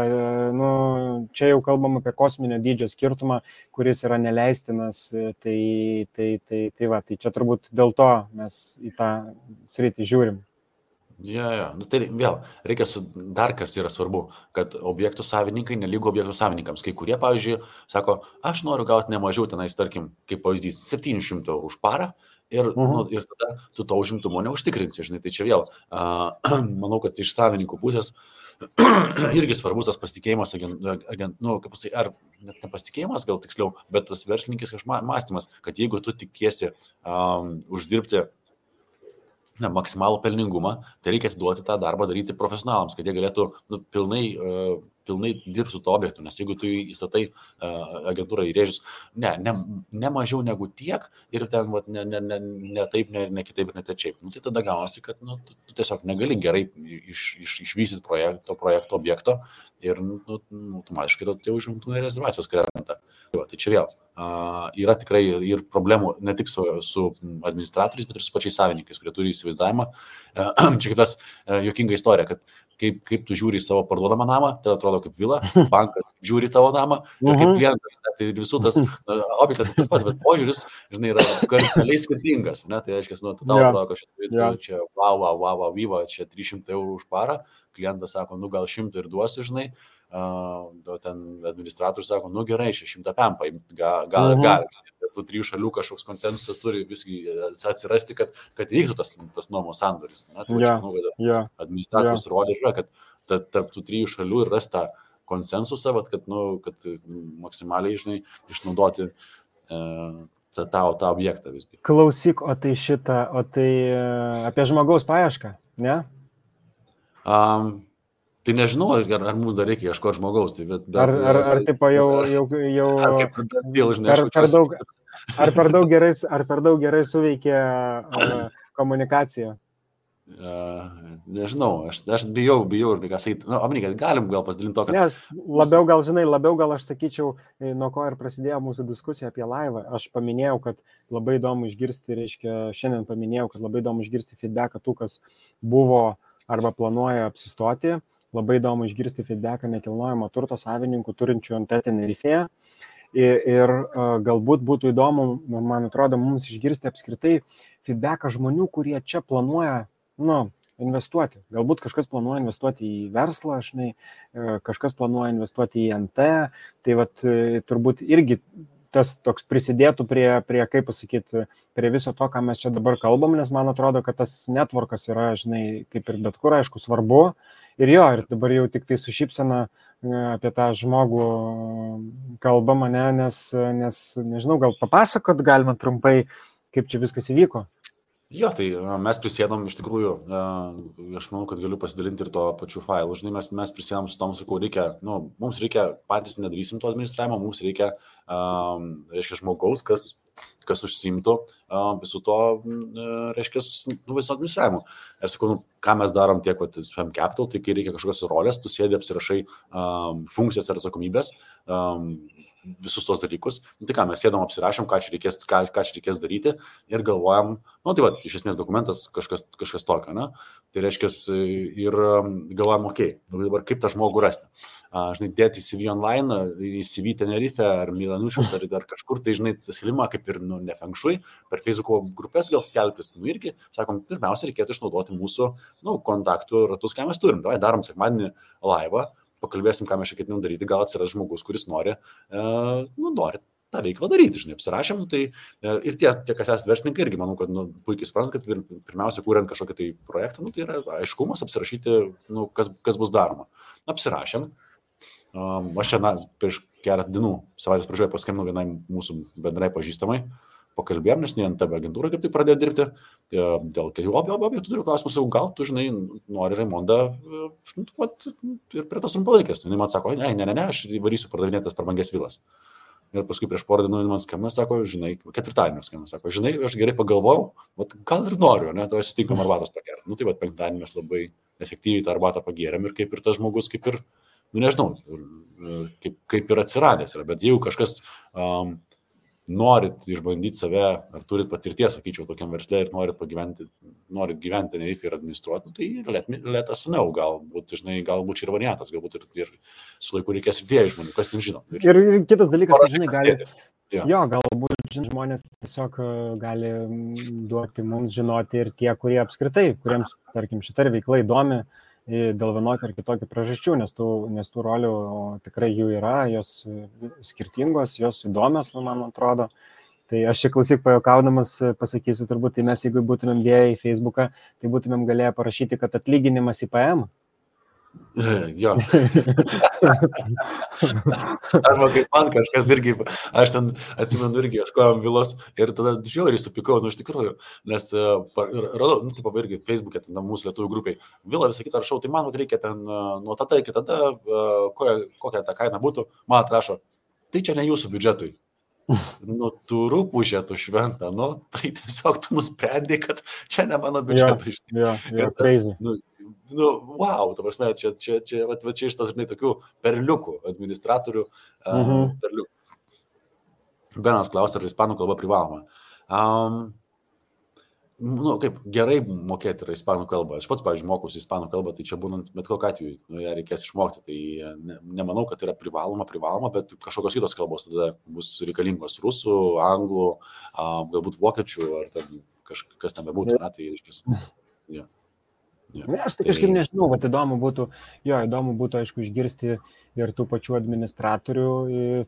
čia jau kalbam apie kosminio dydžio skirtumą, kuris yra neleistinas, tai čia turbūt dėl to mes į tą sritį žiūrim. Ja. Tai vėl, reikia dar kas yra svarbu, kad objektų savininkai nelygu objektų savininkams. Kai kurie, pavyzdžiui, sako, aš noriu gauti ne mažiau tenais, tarkim, kaip pavyzdys, 700 eurų už parą ir tada tu to užimtumo neužtikrinsi, žinai. Tai čia vėl, manau, kad iš savininkų pusės irgi svarbus tas pasitikėjimas, kaip pasakyti, ar net nepasitikėjimas, gal tiksliau, bet tas verslininkis mąstymas, kad jeigu tu tikiesi uždirbti maksimalų pelningumą, tai reikia atiduoti tą darbą daryti profesionalams, kad jie galėtų pilnai dirbti su to objektu, nes jeigu tu įstatai agentūrą į rėžius, ne mažiau negu tiek ir ten ne taip, ne kitaip ir ne tečiaip, tai tada gaunasi, kad tu tiesiog negali gerai išvystyti projekto objekto ir automatiškai tie užimtumai rezervacijos krenta. Tai čia vėl yra tikrai ir problemų ne tik su administratoriais, bet ir su pačiais savininkais, kurie turi įsivaizdavimą. Čia kaip tas juokinga istorija, kad kaip tu žiūri į savo parduodamą namą, tai atrodo kaip vila, bankas žiūri tavo namą ir kaip klientas, tai visų tas objektas tas pats, bet požiūris, žinai, yra kardinaliai skirtingas, ne? Tai reiškia, tu tau atrodo, kad čia wow, vyva, čia 300 eurų už parą, klientas sako, gal 100 ir duosiu, žinai, ten administratorius sako, gerai, 100 paim, gal. Ir tų 3 šalių kažkoks konsensusas turi visgi atsirasti, kad vyktų tas nuomos sandoris. Tai manau, kad administratorius rodė yra, kad tarp tų 3 šalių ir rasta konsensusą, kad maksimaliai, žinai, išnaudoti tą objektą visgi. Klausyk, o tai apie žmogaus paiešką, ne? Tai nežinau, ar mums dar reikia ieškoti žmogaus. Tai ar tipo jau per daug gerai suveikia komunikacija? Nežinau, aš bijau ir ką sakyti. Omnikai, galim gal pasidalinti to, kad... Labiau gal aš sakyčiau, nuo ko ir prasidėjo mūsų diskusija apie laivą. Aš paminėjau, kad labai įdomu išgirsti, šiandien paminėjau, kad labai įdomu išgirsti feedbacką tų, kas buvo arba planuoja apsistoti. Labai įdomu išgirsti feedbacką nekilnojamo turto savininkų turinčių ant Tenerifėje. Ir galbūt būtų įdomu, man atrodo, mums išgirsti apskritai feedbacką žmonių, kurie čia planuoja investuoti. Galbūt kažkas planuoja investuoti į verslą, kažkas planuoja investuoti į NT. Tai turbūt irgi tas toks prisidėtų prie kaip pasakyti, prie viso to, ką mes čia dabar kalbam, nes man atrodo, kad tas networkas yra, kaip ir bet kur, aišku, svarbu. Ir dabar jau tik tai su šypsena apie tą žmogų kalbama, nes nežinau, gal papasakot galima trumpai, kaip čia viskas įvyko. Tai mes prisėdom iš tikrųjų, aš manau, kad galiu pasidalinti ir to pačiu failu. Žinai, mes prisėdom su tom, sakau, mums reikia, patys nedarysim to administravimo, mums reikia, žmogaus, kas užsiimtų visų to, viso administravimo. Ir sakau, ką mes darom tiek, FM Capital, tai kai reikia kažkokios rolės, tu sėdi, apsirašai funkcijas ir atsakomybės, visus tos dalykus. Tai ką, mes sėdom, apsirašom, ką čia reikės daryti ir galvojam, iš esmės dokumentas kažkas tokio, ne? Tai reiškia, ir galvojam, dabar kaip tą žmogų rasti. Dėti į CV online, į CV Tenerife ar Milanušius ar kažkur, tai tas skelbimą kaip ir ne fengšui, per Facebook'o grupės gal skelbtis, irgi, sakom, pirmiausia, reikėtų išnaudoti mūsų kontaktų ratus, ką mes turim. Darom sekmadienį laivą, pakalbėsim, ką mes čia ketinam daryti, gal atsiras žmogus, kuris nori tą veiklą daryti, apsirašėm, tai ir tie, kas esate verslininkai, irgi manau, kad puikiai suprantat, kad pirmiausia, kuriant kažkokį tai projektą, tai yra aiškumas apsirašyti, kas bus daroma. Apsirašėm. Aš čia, prieš keletą dienų, savaitės pradžioje paskambinau vienai mūsų bendrai pažįstamai, pakalbėjom, nes ne NTB agentūra kaip tai pradėjo dirbti, dėl kelių objektų turiu klausimus, gal tu, nori Raimondą ir prie tos trumpalaikės. Jis man sako, ne, aš varysiu pardavinėtas per brangias vilas. Ir paskui prieš porą dienų man skambina, sako, žinai, ketvirtadienį skambina, sako, žinai, aš gerai pagalvojau, gal ir noriu, ne, tai sutinkam arbatos pagerti. Nu, tai penktadienį mes labai efektyviai tą arbatą pagėrėm ir kaip ir tas žmogus, kaip ir, nu nežinau, kaip ir atsiradęs yra. Bet jeigu kažkas norit išbandyti save, ar turit patirties, sakyčiau, tokiam versle ir norit gyventi Tenerife ir administruoti, tai let us know, galbūt čia ir variantas, galbūt ir su laiku reikės ir dviejų žmonių, kas ten žino. Ir kitas dalykas, kad, žinai, gali, jo, galbūt žmonės tiesiog gali duoti mums žinoti ir tie, kurie apskritai, kuriems, tarkim, šita veikla įdomi dėl vienokio ar kitokio priežasčių, nes tų rolių tikrai jų yra, jos skirtingos, jos įdomios, man atrodo. Tai aš čia klausyk pajokaudamas pasakysiu, turbūt, tai mes jeigu būtumėm dėję į Facebooką, tai būtumėm galėję parašyti, kad atlyginimas IPM. Jo. Arba kaip man kažkas irgi, aš ten atsimenu irgi ieškojom vilos ir tada žiauriai supikau, nu iš tikrųjų, nes radau, nu taip irgi Facebook'e, ten mūsų lietuvių grupiai, vilą visą kitą rašau, tai man reikia ten nuo tada iki tada, kokia ta kaina būtų, man atrašo, tai čia ne jūsų biudžetui. Nu, tu rūpužė, tu šventą, nu, tai tiesiog tu nusprendai, kad čia ne mano biudžetui. Crazy. Nu, wow, ta prasme, čia iš tas, žinai, tokių perliukų, administratorių perliukų. Benas klausia, ar ispanų kalba privaloma. Nu, kaip gerai mokėti yra ispanų kalbą. Aš pats, pavyzdžiui, mokausi ispanų kalbą, tai čia būnant bet kokiu atveju, ją reikės išmokti. Tai nemanau, kad yra privaloma, bet kažkokios kitos kalbos tada bus reikalingos. Rusų, anglų, galbūt vokiečių, ar ten kas ten bebūtų. Tai iškis. Yeah. Aš tai kažkaip nežinau, bet įdomu būtų, aišku, išgirsti ir tų pačių administratorių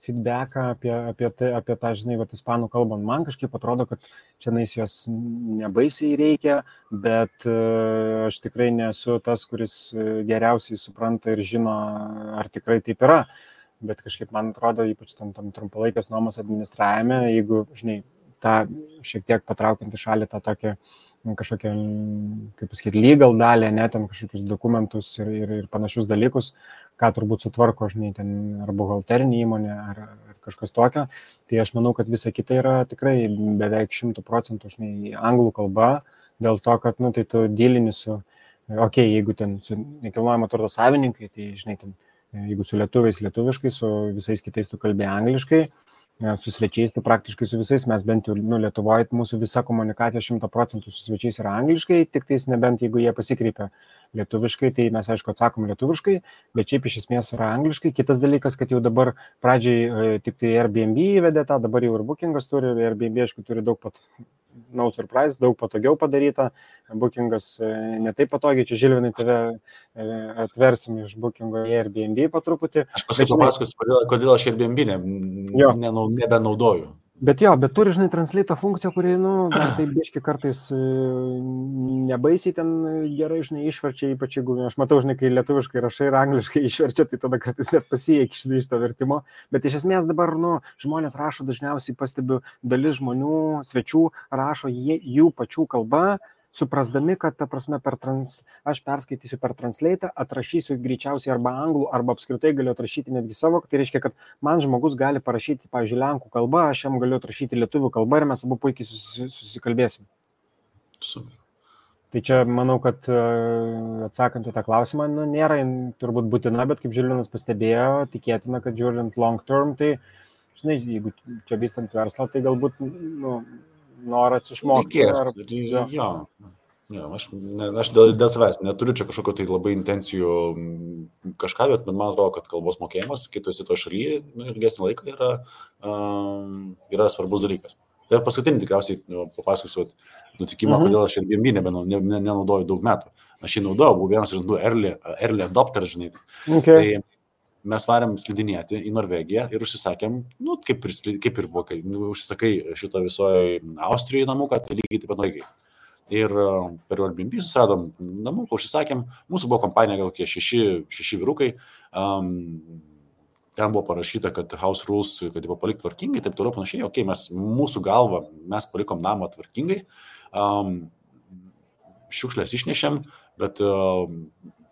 feedbacką apie tą, žinai, ispanų kalbą. Man kažkaip atrodo, kad čia jos nebaisiai reikia, bet aš tikrai nesu tas, kuris geriausiai supranta ir žino, ar tikrai taip yra. Bet kažkaip man atrodo, ypač tam trumpalaikės nuomos administravime, jeigu, žinai, tą šiek tiek patraukiant į šalį tą tokią kažkokią, kaip pasakyti, legal dalį, ne, ten kažkokius dokumentus ir panašius dalykus, ką turbūt sutvarko, žinai, ten ar buhalterinė įmonė, ar kažkas tokio. Tai aš manau, kad visa kita yra tikrai beveik 100%, žinai, anglų kalba, dėl to, kad, nu, tai tu dylini su, jeigu ten su nekilnojamo turto savininkai, tai, žinai, ten, jeigu su lietuviais lietuviškai, su visais kitais tu kalbė angliškai, su svečiais, tai praktiškai su visais mes bent jau, nu, Lietuvoje mūsų visa komunikacija 100% su svečiais yra angliškai, tik tais nebent jeigu jie pasikreipia lietuviškai, tai mes aišku atsakom lietuviškai, bet šiaip iš esmės yra angliškai. Kitas dalykas, kad jau dabar pradžiai tik tai Airbnb įvedė tą, dabar jau ir Bookingas turi, Airbnb aišku turi daug no surprise, daug patogiau padaryta, Bookingas ne taip patogiai, čia Žilvinai tave atversim iš Bookingo į Airbnb po truputį. Aš paskui papasakosiu, kodėl aš Airbnb nebenaudoju. Bet turi, žinai, translate funkciją, kuri, nu, tai biški kartais nebaisiai ten gerai, žinai, išverčia, ypač jeigu, aš matau, žinai, kai lietuviškai rašai ir angliškai išverčia, tai tada kartais net pasieki iš to vertimo. Bet iš esmės dabar, nu, žmonės rašo, dažniausiai pastebiu, dalis žmonių, svečių rašo jų pačių kalba, suprasdami, kad, ta prasme, aš perskaitysiu per translate, atrašysiu greičiausiai arba anglų, arba apskritai galiu atrašyti netgi savo, tai reiškia, kad man žmogus gali parašyti, pavyzdžiui, lenkų kalbą, aš jam galiu atrašyti lietuvių kalbą ir mes abu puikiai susikalbėsim. Super. Tai čia, manau, kad atsakant į tą klausimą, nu, nėra turbūt būtina, bet kaip Žilvinas pastebėjo, tikėtina, kad žiūrint long term, tai, žinai, jeigu čia vystant verslą, tai galbūt, nu, noras išmokti. Aš dėl savęs neturiu čia kažkokio tai labai intencijų kažką, bet man atrodo, kad kalbos mokėjimas, kai tu esi to šalyje, ilgesnį laiką yra svarbus dalykas. Tai paskutinį tikriausiai papasakosiu nutikimą, kodėl aš Airbnb nenaudoju daug metų. Aš jį naudojau, buvau vienas iš early adopter, žinai. Okay. Tai mes varėm slidinėti į Norvegiją ir užsisakėm, nu, kaip ir vokai, užsisakai šito visoje Austrijoje namuką, tai lygiai taip pat Norvegijai. Ir per Airbnb susiradom namuką, užsisakėm, mūsų buvo kompanija gal kokie 6 vyrukai, ten buvo parašyta, kad house rules, kad jį palikti tvarkingai, taip toliau panašiai, mūsų galva, mes palikom namą tvarkingai, šiukšlės išnešėm, bet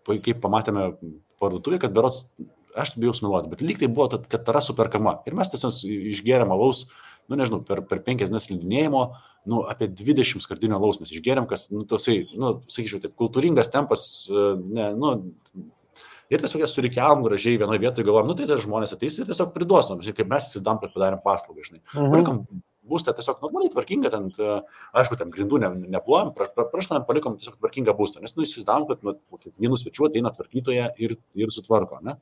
kaip pamatėme parduotuvėje, kad berods aš bijau smeluoti, bet lyg tai buvo, kad tara superkama. Ir mes tiesiog išgėrėm alaus, nežinau, per 5 dienas slidinėjimo, apie 20 skardinių alaus mes išgėrėm, kas, toksai, sakyčiau, taip, kultūringas tempas, ir tiesiog jas surikiavom gražiai vienoje vietoje, galvom, tai žmonės ateis ir tiesiog priduos, kaip mes įsivaizdavom, kad padarėm paslaugą, žinai. Palikom būstą tiesiog normaliai tvarkingą, ten, aišku, ten grindų neplojom, praštam, palikom tiesiog tvarkingą būstą, nes įsivaizdavom, kad vienų svečių ateina tvarkytoje ir sutvarko, ne?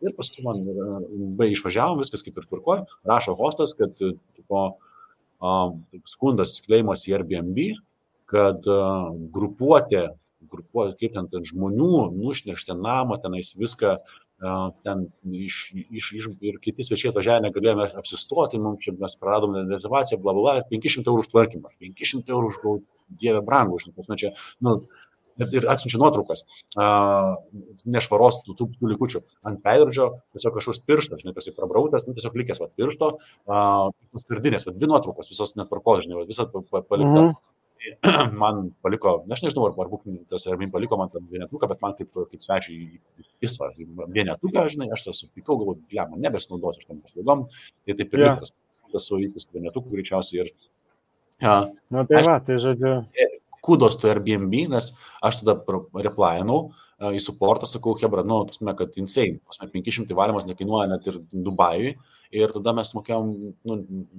Ir paskui man išvažiavom, viskas kaip ir tvarkoja, rašo hostas, kad skundas skleimas į Airbnb, kad grupuotė, kaip ten žmonių nušnešti namą, tenais viską, ten ir kiti svečiai atvažiavę negalėjome apsistoti, mums čia mes praradom rezervaciją, bla, bla, 500 eurų už tvarkymą, 500 eurų už dievę brangų, čia, ir atsiunčia nuotraukas, nešvaros tų likučių ant veidrodžio, tiesiog kažkoks pirštas, žinai, prasiprabrautas, tiesiog likęs piršto, skardinės, 2 nuotraukos, visos netvarkos, žinai, visą palikta. Man paliko, aš nežinau, ar bukininkas ar man paliko man tą vienetuką, bet man kaip svečiai įsva vienetuką, žinai, aš supykau, galvoju, man nebesinaudosiu aš tam paslaugom, tai taip ir likas, tas su įpūstų vienetukų greičiausiai ir... Tai žodžiu... Kudos to Airbnb, nes aš tada replainau į supportą, sakau, hebra, kad insane, 500 valymas nekainuoja net ir Dubajui, ir tada mes mokėjom,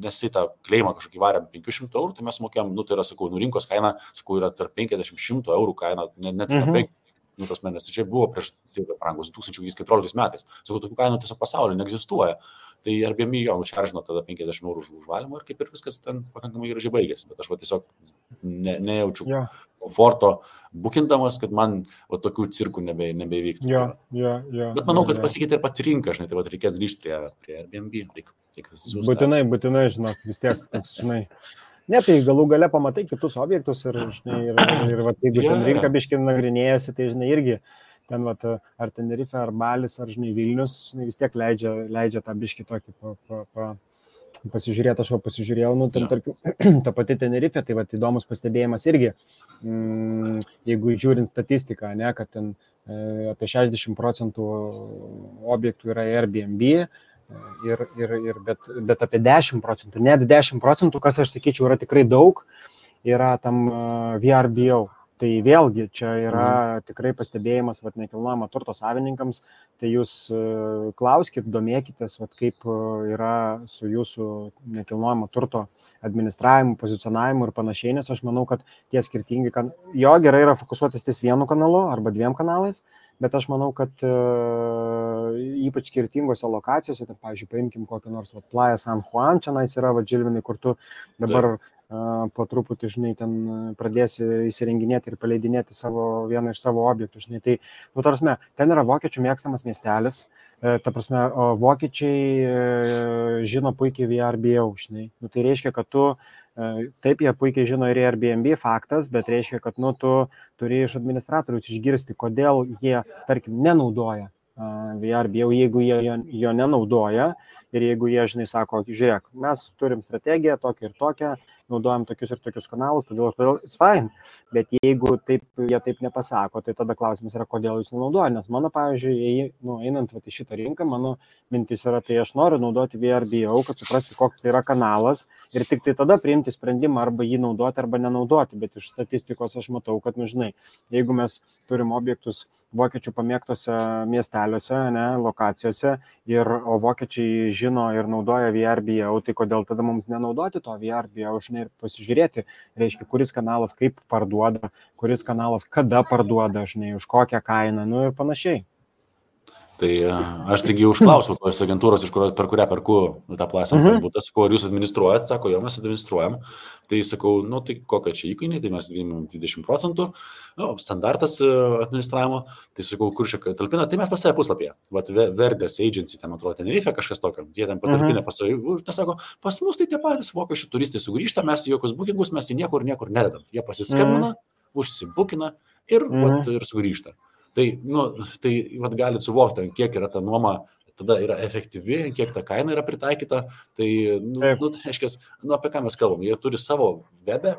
nes į tą kleimą kažkokį varėm 500 eurų, tai mes mokėjom, tai yra, sakau, rinkos kaina, sakau, yra tarp 50-100 eurų kaina, net nes čia buvo prieš brangus 2014 metais, sakau, tokių kainų tiesiog pasaulyje neegzistuoja, tai Airbnb jo nušaržino tada 50 eurų už valymą ir kaip ir viskas ten pakankamai gražiai baigėsi, bet aš tiesiog nejaučiu komforto bukindamas, kad man tokių cirkų nebeįvyktų. Bet manau, kad pasikeitė ir pati rinka, žinai, tai reikės grįžti prie Airbnb. Būtinai, žinok, vis tiek, žinai. Ne, tai galų gale pamatai kitus objektus ir jeigu ten rinka biškai nagrinėjasi, tai, žinai, irgi ten, ar Tenerife, ar Balis, ar, žinai, Vilnius, žinai, vis tiek leidžia tą biškai tokį pasižiūrėti, aš pasižiūrėjau, ten, tarkim, ta pati Tenerife, tai įdomus pastebėjimas irgi, jeigu žiūrint statistiką, ne, kad ten apie 60% objektų yra Airbnb, bet apie 10%, net 10%, kas aš sakyčiau yra tikrai daug, yra tam VRBO. Tai vėlgi čia yra tikrai pastebėjimas nekilnojamo turto savininkams, tai jūs klauskit, domėkitės, kaip yra su jūsų nekilnojamo turto administravimu, pozicionavimu ir panašiai, nes aš manau, kad tie skirtingi, jo gerai yra fokusuotis ties vienu kanalu arba 2 kanalais, bet aš manau, kad ypač skirtingose lokacijose, tai, pavyzdžiui, paimkim kokią nors Playa San Juan, čia yra Žilvinai, kur tu dabar po truputį, žinai, ten pradėsi įsirenginėti ir paleidinėti vieną iš savo objektų, žinai, tai, tarsi, ten yra vokiečių mėgstamas miestelis, ta prasme, vokiečiai žino puikiai VRBO, žinai, tai reiškia, kad tu, taip, jie puikiai žino ir Airbnb faktas, bet reiškia, kad, tu turi iš administratorius išgirsti, kodėl jie, tarkim, nenaudoja VRBO, jeigu jie jo nenaudoja ir jeigu jie, žinai, sako, žiūrėk, mes turim strategiją tokią ir tokią, naudojam tokius ir tokius kanalus, todėl it's fine, bet jeigu jie taip nepasako, tai tada klausimas yra, kodėl jūs nenaudoja, nes mano, pavyzdžiui, einant į šitą rinką, mano mintis yra, tai aš noriu naudoti VRBO, kad suprasti, koks tai yra kanalas ir tik tai tada priimti sprendimą arba jį naudoti arba nenaudoti, bet iš statistikos aš matau, kad, žinai, jeigu mes turim objektus vokiečių pamėgtose miesteliuose, lokacijose, o vokiečiai žino ir naudoja VRBO, tai kodėl tada mums nenaudoti to VRBO, žinai, ir pasižiūrėti, reiškia, kuris kanalas kaip parduoda, kuris kanalas kada parduoda, žinai, už kokią kainą, ir panašiai. Tai aš taigi užklausiau tos agentūros, per kurią perku tą plasą būtą, sakau, ar jūs administruojat, sako, jo, mes administruojam, tai sakau, tai kokia čia įkainiai, tai mes 20%, standartas administravimo, tai sakau, kur čia talpina, tai mes pas save puslapyje, Verdės Agency, ten atrodo, Tenerife kažkas tokio, jie ten patalpina pas save, tai sako, pas mus tai tie patys vokiečių turistai sugrįžta, mes jokius bookingus, mes į niekur nededam, jie pasiskambina, užsibukina ir sugrįžta. Tai galit suvokti, kiek yra ta nuoma, tada yra efektyvi, kiek ta kaina yra pritaikyta, tai, aiškiai, apie ką mes kalbam, jie turi savo webe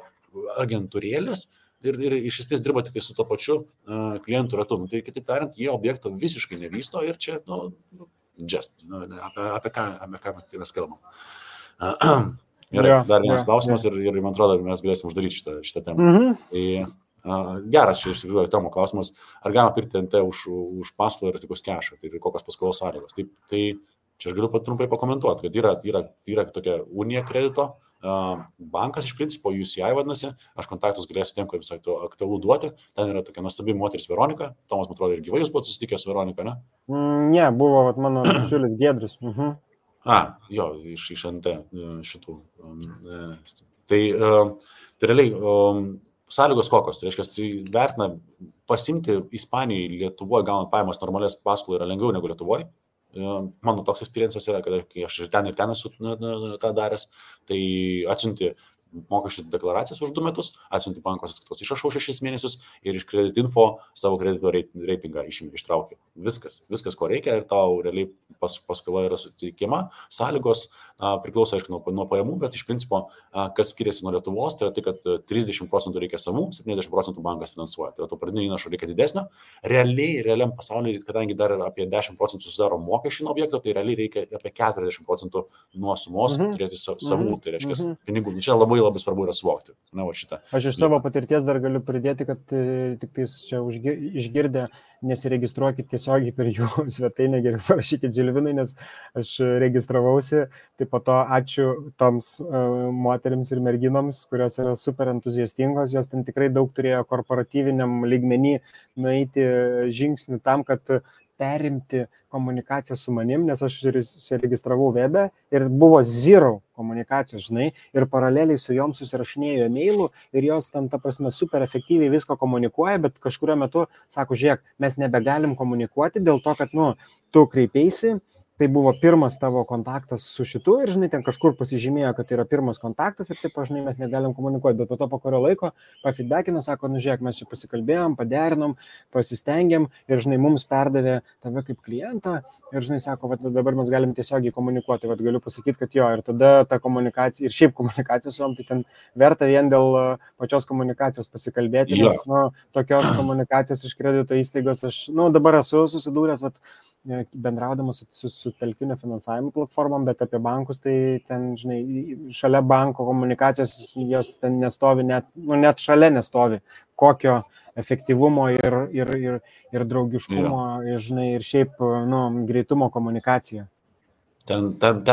agentūrėlės, ir iš esmės dirba tik su to pačiu klientų ratu. Tai kitaip tariant, jie objekto visiškai nevysto ir čia, apie ką mes kalbam. Gerai, dar vienas klausimas ir man atrodo, mes galėsim uždaryti šitą temą. Tai geras čia iš tikrųjų Tomo klausimas, ar galima pirkti NT už paskolą ir tik už kešą, tai kokios paskolos sąlygos. Tai čia aš galiu trumpai pakomentuoti, kad yra tokia unija kredito, bankas iš principo UCI vadinasi, aš kontaktus galėsiu tiem, kad visai to aktualu duoti, ten yra tokia nuostabi moteris Veronika, Tomas, man atrodo, ir gyvai jūs buvote susitikęs su Veronika, ne? Ne, buvo mano bičiulis Giedrius. Jo, iš NT šitų. Tai realiai sąlygos kokios, tai reiškia, tai vertina pasimti Ispanijai Lietuvoje gaunant pajamas normalias paskolų yra lengviau negu Lietuvoje. Mano toks experiences yra, kad kai aš ir ten esu tą daręs, tai atsiunti mokesčių deklaracijas už 2 metus, atsiunti banko sąskaitos išrašau 6 mėnesius ir iš Credit Info savo kredito reitingą ištraukiu. Viskas, ko reikia ir tau realiai paskola yra suteikiama. Sąlygos priklauso, aišku, nuo pajamų, bet iš principo, kas skiriasi nuo Lietuvos, tai yra tai, kad 30% reikia savų, 70% bankas finansuoja. Tai to pradinio įnašo reikia didesnio. Realiam pasaulyje, kadangi dar apie 10% susidaro mokesčių nuo objekto, tai realiai reikia apie 40% nuo sumos turėti savų, tai reiškia pinigų. Čia labai svarbu yra suvokti. Aš iš savo patirties dar galiu pridėti, kad tik tais čia išgirdę nesiregistruokit tiesiogiai per jų svetainę, geriau parašykit Žilvinai, nes aš registravausi, tai po to ačiū toms moterims ir merginoms, kurios yra super entuziastingos, jos ten tikrai daug turėjo korporatyviniam lygmenį nueiti žingsnių tam, kad perimti komunikaciją su manim, nes aš registravau webe ir buvo zero komunikacijos, žinai, ir paraleliai su jom susirašinėjo e-mailų ir jos ten, ta prasme, super efektyviai visko komunikuoja, bet kažkurio metu sako, žiūrėk, mes nebegalim komunikuoti dėl to, kad, tu kreipeisi, tai buvo pirmas tavo kontaktas su šitu ir, žinai, ten kažkur pasižymėjo, kad tai yra pirmas kontaktas ir taip, žinai, mes negalim komunikuoti, bet po kurio laiko pafeedbackino, sako, žiūrėk, mes čia pasikalbėjom, paderinom, pasistengėm ir, žinai, mums perdavė tave kaip klientą ir, žinai, sako, dabar mes galim tiesiogiai komunikuoti, galiu pasakyti, kad jo, ir tada ta komunikacija, ir šiaip komunikacija su jom, tai ten verta vien dėl pačios komunikacijos pasikalbėti, nes, tokios komunikacijos iš kredito įstaigos aš, dabar esu susidūręs, bendraudamas su telkinio finansavimo platformom, bet apie bankus, tai ten, žinai, šalia banko komunikacijos jos ten nestovi, net šalia nestovi, kokio efektyvumo ir draugiškumo, žinai, ir šiaip, greitumo komunikacija. Ten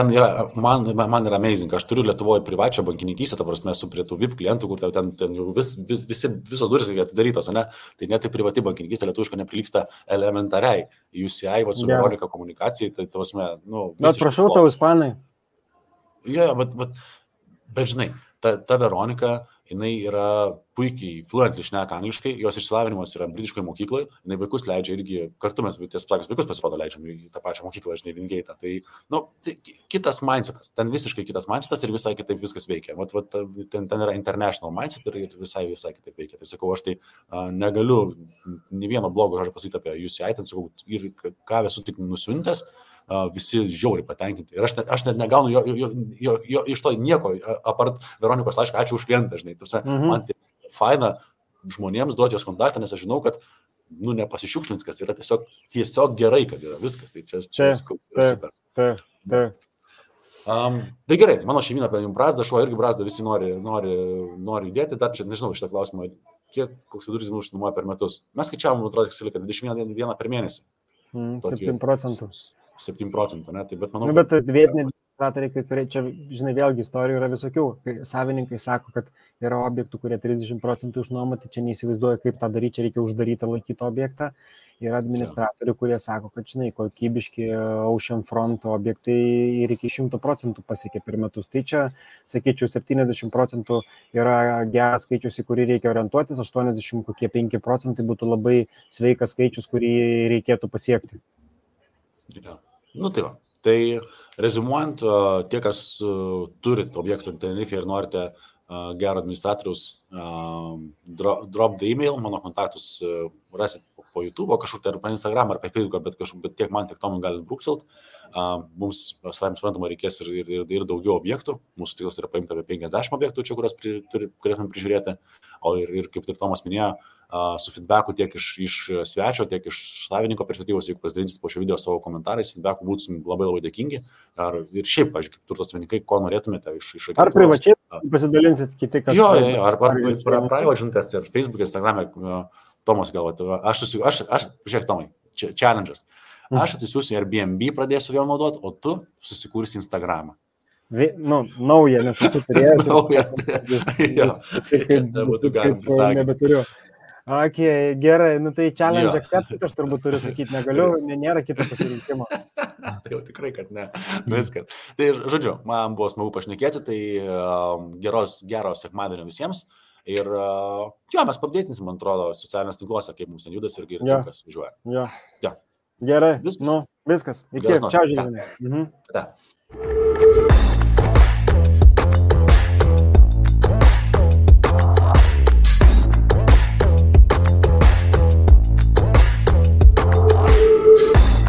yra, man yra amazing, aš turiu Lietuvoje privačią bankininkystę, ta prasme, esu prie tų VIP klientų, kur ten jau visos duris atidarytos, ne? Tai net tai privati bankininkystė lietuviška neprilyksta elementariai UCI, su Veronika komunikacijai, tai ta prasme, Bet prašau tau, ispanai. Jo, bet žinai, ta Veronika, jinai yra puikiai fluently šneka angliškai, jos išsilavinimas yra britiškoje mokykloje, jinai vaikus leidžia irgi, kartu mes vaikus pasirodo leidžiam į tą pačią mokyklą, žinai, Vingeitą. Tai kitas mindsetas, ten visiškai kitas mindsetas ir visai kitaip viskas veikia. Ten yra international mindset ir visai kitaip veikia. Tai sakau, aš tai negaliu nei vieno blogo žodžio pasakyti apie UCI, ten sakau, ir ką esu tik nusiuntęs, visi žiauriai patenkinti. Ir aš net negaunu jo iš to nieko, apart Veronikos laišką, ačiū už klientą, žinai. Man tai faina žmonėms duoti jos kontaktą, nes aš žinau, kad nepasišiukšlins, kas yra tiesiog gerai, kad yra viskas. Tai čia super. Tai gerai, mano šeimyna apie jums brazdą, šuo irgi brazdą, visi nori judėti, dar čia nežinau šitą klausimą, koks vidurkis išnuomoja per metus. Mes skaičiavom, atrodo, kad 21 per mėnesį. 7%. 7%, ne? Tai bet manau... Bet vietiniai administratoriai, kai kurie, čia, žinai, vėlgi istorijų yra visokių. Kai savininkai sako, kad yra objektų, kurie 30% išnuomoti, čia neįsivaizduoja, kaip tą daryti, čia reikia uždaryti, laikyti objektą. Yra administratorių, kurie sako, kad, žinai, kokybiški Ocean Front objektai ir iki 100% pasiekia per metus. Tai čia, sakyčiau, 70% yra geras skaičius, į kurį reikia orientuotis, 85% būtų labai sveikas skaičius, kurį reikėtų pasiekti. Ja. Tai va. Tai rezumuojant, tie, kas turit objektų Tenerife ir norite gero administratoriaus, drop the email, mano kontaktus rasit po YouTube, kažkur tai ar po Instagram, ar po Facebook, bet tiek man, tiek Tomui gali brūkselt. Mums, savai suprantama, reikės ir daugiau objektų. Mūsų tikslas yra paimti apie 50 objektų čia, kurias turėtume prižiūrėti. O ir kaip ir Tomas minėjo, su feedbacku tiek iš svečio, tiek iš savininko perspektyvos, jeigu pasidalinsit po šio video savo komentarais, feedbacku būtum labai labai dėkingi. Ir šiaip, pavyzdžiui, kaip turto savininkai, ko norėtumėte iš agentūros. Ar privačiai pasidalinsit kiti, kas... Jo, ar private žinutės ir Facebook, Instagram'e, Tomas galvoja, žiūrėk, Tomai, challenge'as. Aš atsisiųsiu Airbnb, pradėsiu vėl naudoti, o tu susikursi Instagramą. Nauja, nes esu turėjęs. Nauja. Nebeturiu. Okay, gerai, tai challenge accepted, aš turbūt turiu sakyti, negaliu, nėra kito pasirinkimo. Tai jau tikrai, kad ne. Viskas. Tai, žodžiu, man buvo smagu pašnekėti, tai gero sekmadienio visiems. Ir mes papdėtinsim, man atrodo, socialiniuose tinkluose, kaip mums ten judas ir kas važiuoja. Jo. Gerai, viskas. Iki, čia žinai. Ta.